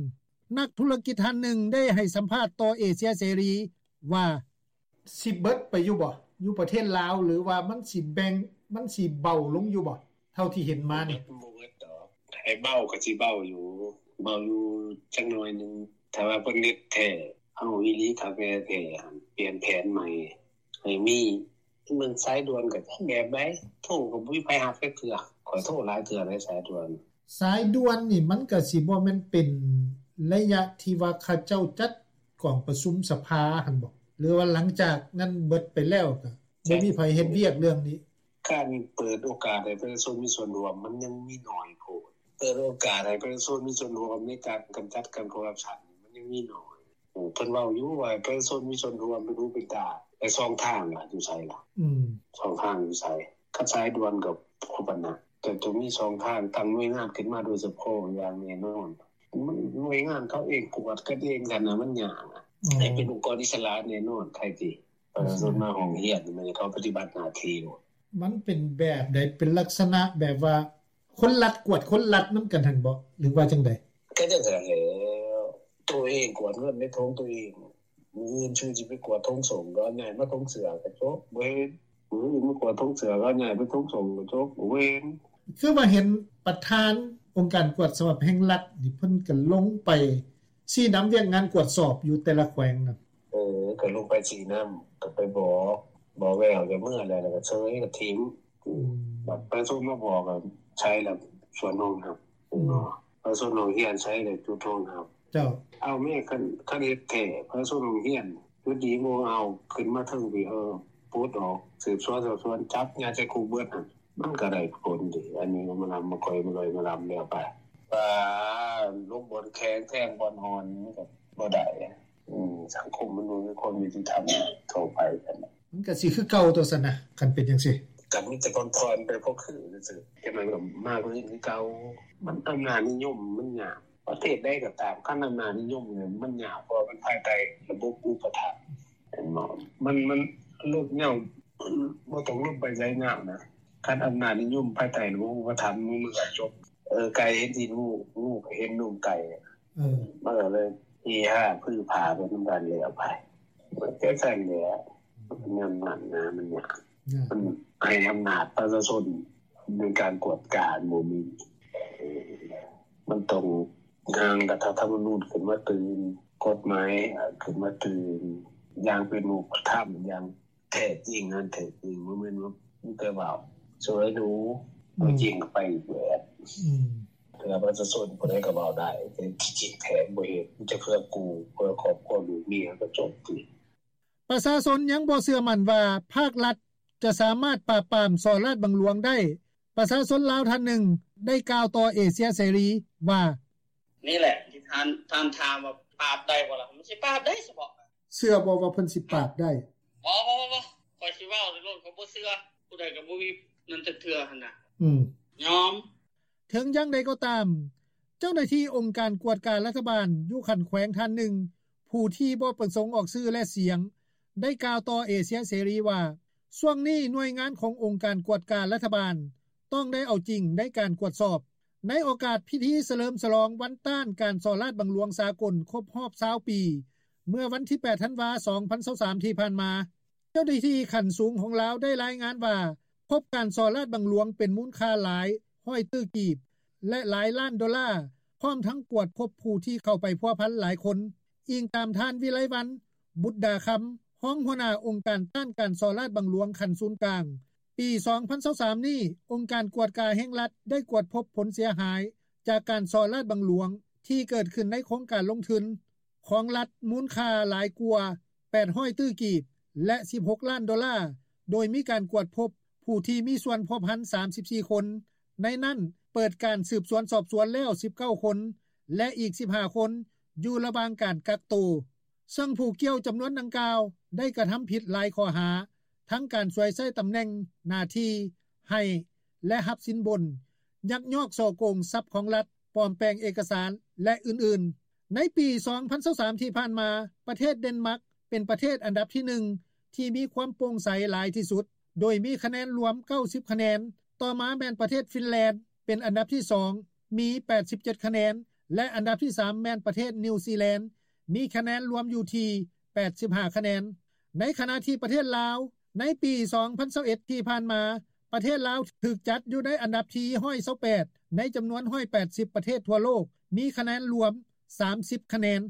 ນັກທຸລະກິດທ່ານໜຶ່ງໄດ້ໃຫ້ສຳພາດຕໍ່ເອເຊຍເສລີວ່າ, ຊິເບິດໄປຢູ່ບໍ່ ຢູ່ປະເທດລາວ ຫຼືວ່າມັນຊິແບ່ງ ມັນຊິເບົາລົງຢູ່ບໍ່ ເທົ່າທີ່ເຫັນມານີ້? ບໍ່ເບິດດອກ, ໃຫ້ເບົາກໍຊິເບົາຢູ່, ເບົາຢູ່ຈັກໜ້ອຍໜຶ່ງ. ຖ້າວ່າເພິ່ນເຮັດແທ້ ເອົາອີ່ຫຼີຄັກແນ່ແທ້ ຫັ້ນ ປ່ຽນແຜນໃໝ່ໃຫ້ມີ. ເບິ່ງສາຍດ່ວນກໍຈັກແບບໃດ, ໂທກໍບໍ່ມີໃຜຮັບຈັກເທື່ອ, ຂ້ອຍໂທຫຼາຍເທື່ອໃດສາຍດ່ວນ. ສາຍດ່ວນນີ້ມັນກໍຊິບໍ່ແມ່ນເປັນໄລຍະທີ່ວ່າເຂົາເຈົ້າຈັດກອງປະຊຸມສະພາຫັ້ນບໍ? ຫຼືວ່າຫຼັງຈາກນັ້ນເບິດໄປແລ້ວກໍບໍ່ມີໃຜເຮັດວຽກເລື່ອງນີ້? ການເປີດໂອກາດໃຫ້ປະຊາຊົນມີສ່ວນຮ່ວມມັນຍັງມີໜ້ອຍໂພດ. ເປີດໂອກາດໃຫ້ປະຊາຊົນມີສ່ວນຮ່ວມໃນການກຳຈັດການຄໍຣັບຊັນມັນຍັງມີໜ້ອຍ. ເພິ່ນເວົ້າຢູ່ວ່າປະຊາຊົນມີສ່ວນຮ່ວມເປັນຫູເປັນຕາ, ແຕ່ຊ່ອງທາງລະຢູ່ໃສລະ? ອືມ ຊ່ອງທາງຢູ່ໃສ? ຄັນສາຍດ່ວນກໍບໍ່ປານນັ້ນ, ແຕ່ຕ້ອງມີຊ່ອງທາງ, ຕັ້ງໜ່ວຍງານຂຶ້ນມາໂດຍສະເພາະຢ່າງແນ່ນອນ. ມັນ ໜ່ວຍງານເຂົາເອງກວດກັນເອງຫັ້ນນະ ມັນຍາກນະ. ອືມ ໃຫ້ເປັນອົງກອນອິດສະຫຼະແນ່ນອນ ໃຄຕິ. ປະຊາຊົນມາຮ້ອງຮຽນ ມັນເຂົາປະຕິບັດໜ້າທີ່ໂລດ. ມັນເປັນແບບໃດ? ເປັນລັກສະນະແບບວ່າຄົນລັດກວດຄົນລັດນຳກັນຫັ້ນບໍ ຫຼືວ່າຈັ່ງໃດ? ກໍຈັ່ງຊັ້ນແຫຼະ ໂຕເອງກວດເງິນໃນຖົງໂຕເອງ ມື້ອື່ນຊື່ຊິໄປກວດຖົງສົງ ກໍເອົາຍ້າຍມາຖົງເສື້ອກໍຈົບ ບໍ່ເຫັນ. ມື້ອື່ນມາກວດຖົງເສື້ອ ກໍເອົາຍ້າຍໄປຖົງສົງ ກໍຈົບ ບໍ່ເຫັນ. ຄືວ່າເຫັນປະທານອົງການກວດສະບັບແຫ່ງລັດນີ້ ເພິ່ນກໍລົງໄປຊີ້ນຳວຽກງານກວດສອບຢູ່ແຕ່ລະແຂວງນະ. ເອີ ກໍລົງໄປຊີ້ນຳ ກໍໄປບອກ ບອກແລ້ວກໍເມືອແລ້ວ ແລ້ວກໍເຊີຍ ກໍຖິ້ມ. ອືມ ບັດປະຊາຊົນມາບອກ ກໍໃຊ້ແລ້ວສ່ວນຮອງຮັບ ອືມ ເນາະ. ປະຊາຊົນຮ້ອງຮຽນໃຊ້ແລ້ວຈຸດຮອງຮັບ. ເຈົ້າ ເອົາແມ້ ຄັນ ຄັນເຮັດແທ້ ປະຊາຊົນຮ້ອງຮຽນ ຈຸດດີບໍ່ເອົາຂຶ້ນມາເທິງພີ້ ເອີ ປົດອອກ ສືບສວນສອບສວນ ຈັບ ຍັດໃສ່ຄຸກເບິດຫັ້ນ ມັນກໍໄດ້ຜົນເດ. ອັນນີ້ກໍມາລຳມາກ່ອຍ ມາລອຍມາລຳແລ້ວໄປ ປາ ລົງບ່ອນແຂງແທງບ່ອນອ່ອນ ມັນກໍບໍ່ໄດ້. ອືມ ສັງຄົມມັນບໍ່ມີຄວາມຍຸຕິທຳທົ່ວໄປ. ມັນກໍຊິຄືເກົ່າຕົວຊັ້ນນະ ຄັນເປັນຈັ່ງຊີ້ ກໍມີແຕ່ຜ່ອນໆໄປພໍຄືຊື່ໆ ຈັ່ງນັ້ນກໍມາກກວ່ານີ້ຄືເກົ່າ. ມັນອຳນາດນິຍົມ ມັນຍາກ. ປະເທດໃດກໍຕາມ ຄັນອຳນາດນິຍົມນີ້ ມັນຍາກ ເພາະວ່າມັນພາຍໃຕ້ລະບົບອຸປະຖຳ ເຫັນບໍ່? ມັນ ມັນ ລົດເຫຍ້າ ບໍ່ຕ້ອງລົງໄປໄລຍາວນະ. ຄັນອຳນາດນິຍົມພາຍໃຕ້ລະບົບອຸປະຖຳ ມັນກໍຈົບ. ເອີ ໄກ່ເຫັນຕີນງູ ງູກໍເຫັນນົມໄກ່. ເອີ ມັນກໍເລີຍເຮຮາຜືຜາໄປນຳກັນແລ້ວໄປ. ມັນຈັ່ງຊັ້ນແຫຼະ. ອືມ ມັນຍາມນັ້ນນະ ມັນຍາກ ຍາກ ມັນໃຫ້ອຳນາດປະຊາຊົນໃນການກວດກາບໍ່ມີ. ເອີ ມັນຕ້ອງຮ່າງລັດຖະທຳມະນູນຂຶ້ນມາຕື່ມ, ກົດໝາຍຂຶ້ນມາຕື່ມ ຢ່າງເປັນຮູບປະທຳ ຢ່າງ ແທ້ຈິງ ອັນແທ້ຈິງ ບໍ່ແມ່ນວ່າມີແຕ່ເວົ້າ ຊ່ວຍດູ ອືມ ບໍ່ຈິງກໍໄປອີກແບບ. ອືມ ເພື່ອປະຊາຊົນຜູ້ໃດກໍເວົ້າໄດ້ ແຕ່ທີ່ຈິງແທ້ບໍ່ເຮັດ ມີແຕ່ເພື່ອກູ ເພື່ອຄອບຄົວລູກເມຍກໍຈົບຕິ. ປະຊາຊົນຍັງບໍ່ເຊື່ອໝັ້ນວ່າ ພາກລັດຈະສາມາດປາບປາມສໍ້ລາດບັງຫຼວງໄດ້. ປະຊາຊົນລາວທ່ານໜຶ່ງໄດ້ກ່າວຕໍ່ເອເຊຍເສລີວ່າ ນີ້ແຫຼະທີ່ທ່ານ ທ່ານຖາມວ່າປາບໄດ້ບໍ່ລະ? ມັນຊິປາບໄດ້ສະເພາະ ເຊື່ອບໍ່ວ່າເພິ່ນຊິປາບໄດ້? ບໍ່ ບໍ່ ບໍ່ ຂ້ອຍຊິເວົ້າໂລດ ຂ້ອຍບໍ່ເຊື່ອ. ຜູ້ໃດກໍບໍ່ມີນັ້ນຈັກເທື່ອຫັ້ນນະ. ອືມ ຍອມ. ເຖິງຢ່າງໃດກໍຕາມ, ເຈົ້າໜ້າທີ່ອົງການກວດກາລັດຖະບານຢູ່ຂັ້ນແຂວງທ່ານໜຶ່ງ ຜູ້ທີ່ບໍ່ປະສົງອອກຊື່ ແລະ ສຽງ ໄດ້ກ່າວຕໍ່ເອເຊຍເສລີວ່າ ຊ່ວງນີ້ໜ່ວຍງານຂອງອົງການກວດກາລັດຖະບານ ຕ້ອງໄດ້ເອົາຈິງໃນການກວດສອບ. ໃນໂອກາດພິທີສະເຫຼີມສະຫຼອງວັນຕ້ານການສໍ້ລາດບັງຫຼວງສາກົນຄົບຮອບຊາວປີ ເມື່ອວັນທີແປດ ທັນວາ ສອງພັນຊາວສາມ ທີ່ຜ່ານມາ, ເຈົ້າໜ້າທີ່ຂັ້ນສູງຂອງລາວໄດ້ລາຍງານວ່າ ພົບການສໍ້ລາດບັງຫຼວງເປັນມູນຄ່າຫຼາຍຮ້ອຍຕື້ກີບ ແລະ ຫຼາຍລ້ານໂດລາ, ພ້ອມທັງກວດພົບຜູ້ທີ່ເຂົ້າໄປພົວພັນຫຼາຍຄົນ. ອີງຕາມທ່ານ ວິໄລວັນ ບຸດດາຄຳ ຮອງຫົວໜ້າອົງການຕ້ານການສໍ້ລາດບັງຫຼວງຂັ້ນສູນກາງ, ປີສອງພັນຊາວສາມນີ້ ອົງການກວດກາແຫ່ງລັດໄດ້ກວດພົບຜົນເສຍຫາຍຈາກການສໍ້ລາດບັງຫຼວງທີ່ເກີດຂຶ້ນໃນໂຄງການລົງທຶນຂອງລັດມູນຄ່າຫຼາຍກວ່າແປດຮ້ອຍຕື້ກີບ ແລະ ສິບຫົກລ້ານໂດລາ, ໂດຍມີການກວດພົບຜູ້ທີ່ມີສ່ວນພົວພັນສາມສິບສີ່ຄົນ, ໃນນັ້ນເປີດການສືບສວນສອບສວນແລ້ວສິບເກົ້າຄົນ ແລະ ອີກສິບຫ້າຄົນຢູ່ລະຫວ່າງການກັກໂຕ. ເຊິ່ງຜູ້ກ່ຽວຈຳນວນດັ່ງກ່າວໄດ້ກະທຳຜິດຫຼາຍຂໍ້ຫາ, ທັງການສວຍໃຊ້ຕຳແໜ່ງ, ໜ້າທີ່, ໃຫ້ ແລະ ຮັບສິນບົນ, ຍັກຍອກສໍ້ໂກງຊັບຂອງລັດ, ປອມແປງເອກະສານ ແລະ ອື່ນໆ. ໃນປີສອງພັນຊາວສາມທີ່ຜ່ານມາ, ປະເທດເດນມາກເປັນປະເທດອັນດັບທີໜຶ່ງທີ່ມີຄວາມໂປ່ງໃສຫຼາຍທີ່ສຸດ, ໂດຍມີຄະແນນລວມເກົ້າສິບຄະແນນ, ຕໍ່ມາແມ່ນປະເທດຟິນແລນເປັນອັນດັບທີສອງ ມີແປດສິບເຈັດຄະແນນ ແລະ ອັນດັບທີສາມແມ່ນປະເທດນິວຊີແລນ ມີຄະແນນລວມຢູ່ທີ່ແປດສິບຫ້າຄະແນນ. ໃນຂະນະທີ່ປະເທດລາວ, ໃນປີສອງພັນຊາວເອັດທີ່ຜ່ານມາ, ປະເທດລາວຖືກຈັດຢູ່ໃນອັນດັບທີຮ້ອຍຊາວແປດ ໃນຈຳນວນຮ້ອຍແປດສິບປະເທດທົ່ວໂລກ, ມີຄະແນນລວມສາມສິບຄະແນນ.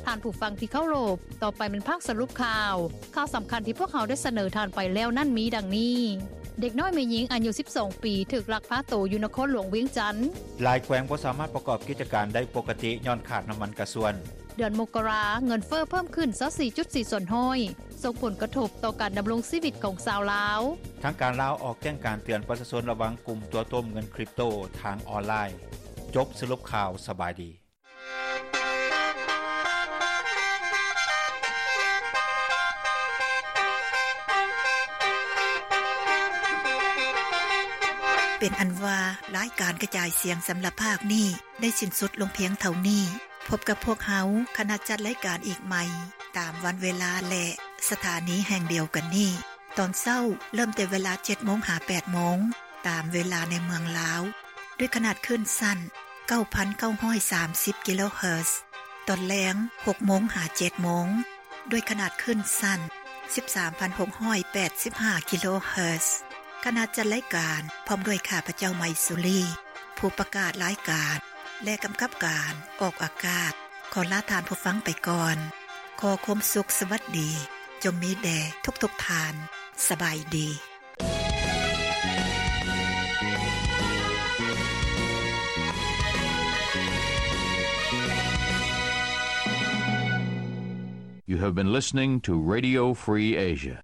ທ່ານຜູ້ຟັງທີ່ເຄົາລົບ, ຕໍ່ໄປແມ່ນພາກສະຫຼຸບຂ່າວ. ຂ່າວສຳຄັນທີ່ພວກເຮົາໄດ້ສະເໜີທ່ານໄປແລ້ວນັ້ນມີດັ່ງນີ້: ເດັກນ້ອຍແມ່ຍິງອາຍຸສິບສອງປີ ຖືກລັກພາໂຕຢູ່ນະຄອນຫຼວງວຽງຈັນ. ຫຼາຍແຂວງບໍ່ສາມາດປະກອບກິດຈະການໄດ້ປົກກະຕິ ຍ້ອນຂາດນ້ຳມັນກະຊວນ. ເດືອນມົກກະລາ, ເງິນເຟີ້ເພີ່ມຂຶ້ນຊາວສີ່ຈຸດສີ່ສ່ວນຮ້ອຍ, ສົ່ງຜົນກະທົບຕໍ່ການດຳລົງຊີວິດຂອງຊາວລາວ. ທາງການລາວອອກແຈ້ງການເຕືອນປະຊາຊົນລະວັງກຸ່ມຕົວະຕົ້ມເງິນຄຣິບໂຕທາງອອນລາຍ. ຈົບສະຫຼຸບຂ່າວ. ສະບາຍດີ. ເປັນອັນວ່າ ລາຍການກະຈາຍສຽງສຳລັບພາກນີ້ ໄດ້ສິ້ນສຸດລົງພຽງເທົ່ານີ້. ພ ພົບກັບພວກເຮົາ ຄະນະຈັດລາຍການອີກໃໝ່ ຕາມວັນເວລາ ແລະ ສະຖານີແຫ່ງດຽວກັນນີ້. ຕອນເຊົ້າເລີ່ມແຕ່ເວລາ ເຈັດໂມງ ຫາ ແປດໂມງ ຕາມເວລາໃນເມືອງລາວ ດ້ວຍຂະໜາດຄື້ນສັ້ນ ເກົ້າພັນເກົ້າຮ້ອຍສາມສິບ ກິໂລເຮີດ. ຕອນແລງ ຫົກໂມງ ຫາ ເຈັດໂມງ ດ້ວຍຂະໜາດຄື້ນສັ້ນ ສິບສາມພັນຫົກຮ້ອຍແປດສິບຫ້າ ກິໂລເຮີດ. ຄະນະຈັດລາຍການ ພ້ອມດ້ວຍຂ້າພະເຈົ້າ ໄມສຸລີ ຜູ້ປະກາດລາຍການ ແລະ ກຳກັບການອອກອາກາດ ຂໍລາທ່ານຜູ້ຟັງໄປກ່ອນ. ຂໍຄວາມສຸກສະຫວັດດີ ຈົ່ງມີແດ່ທຸກໆທ່ານ. ສະບາຍດີ. You have been listening to Radio Free Asia.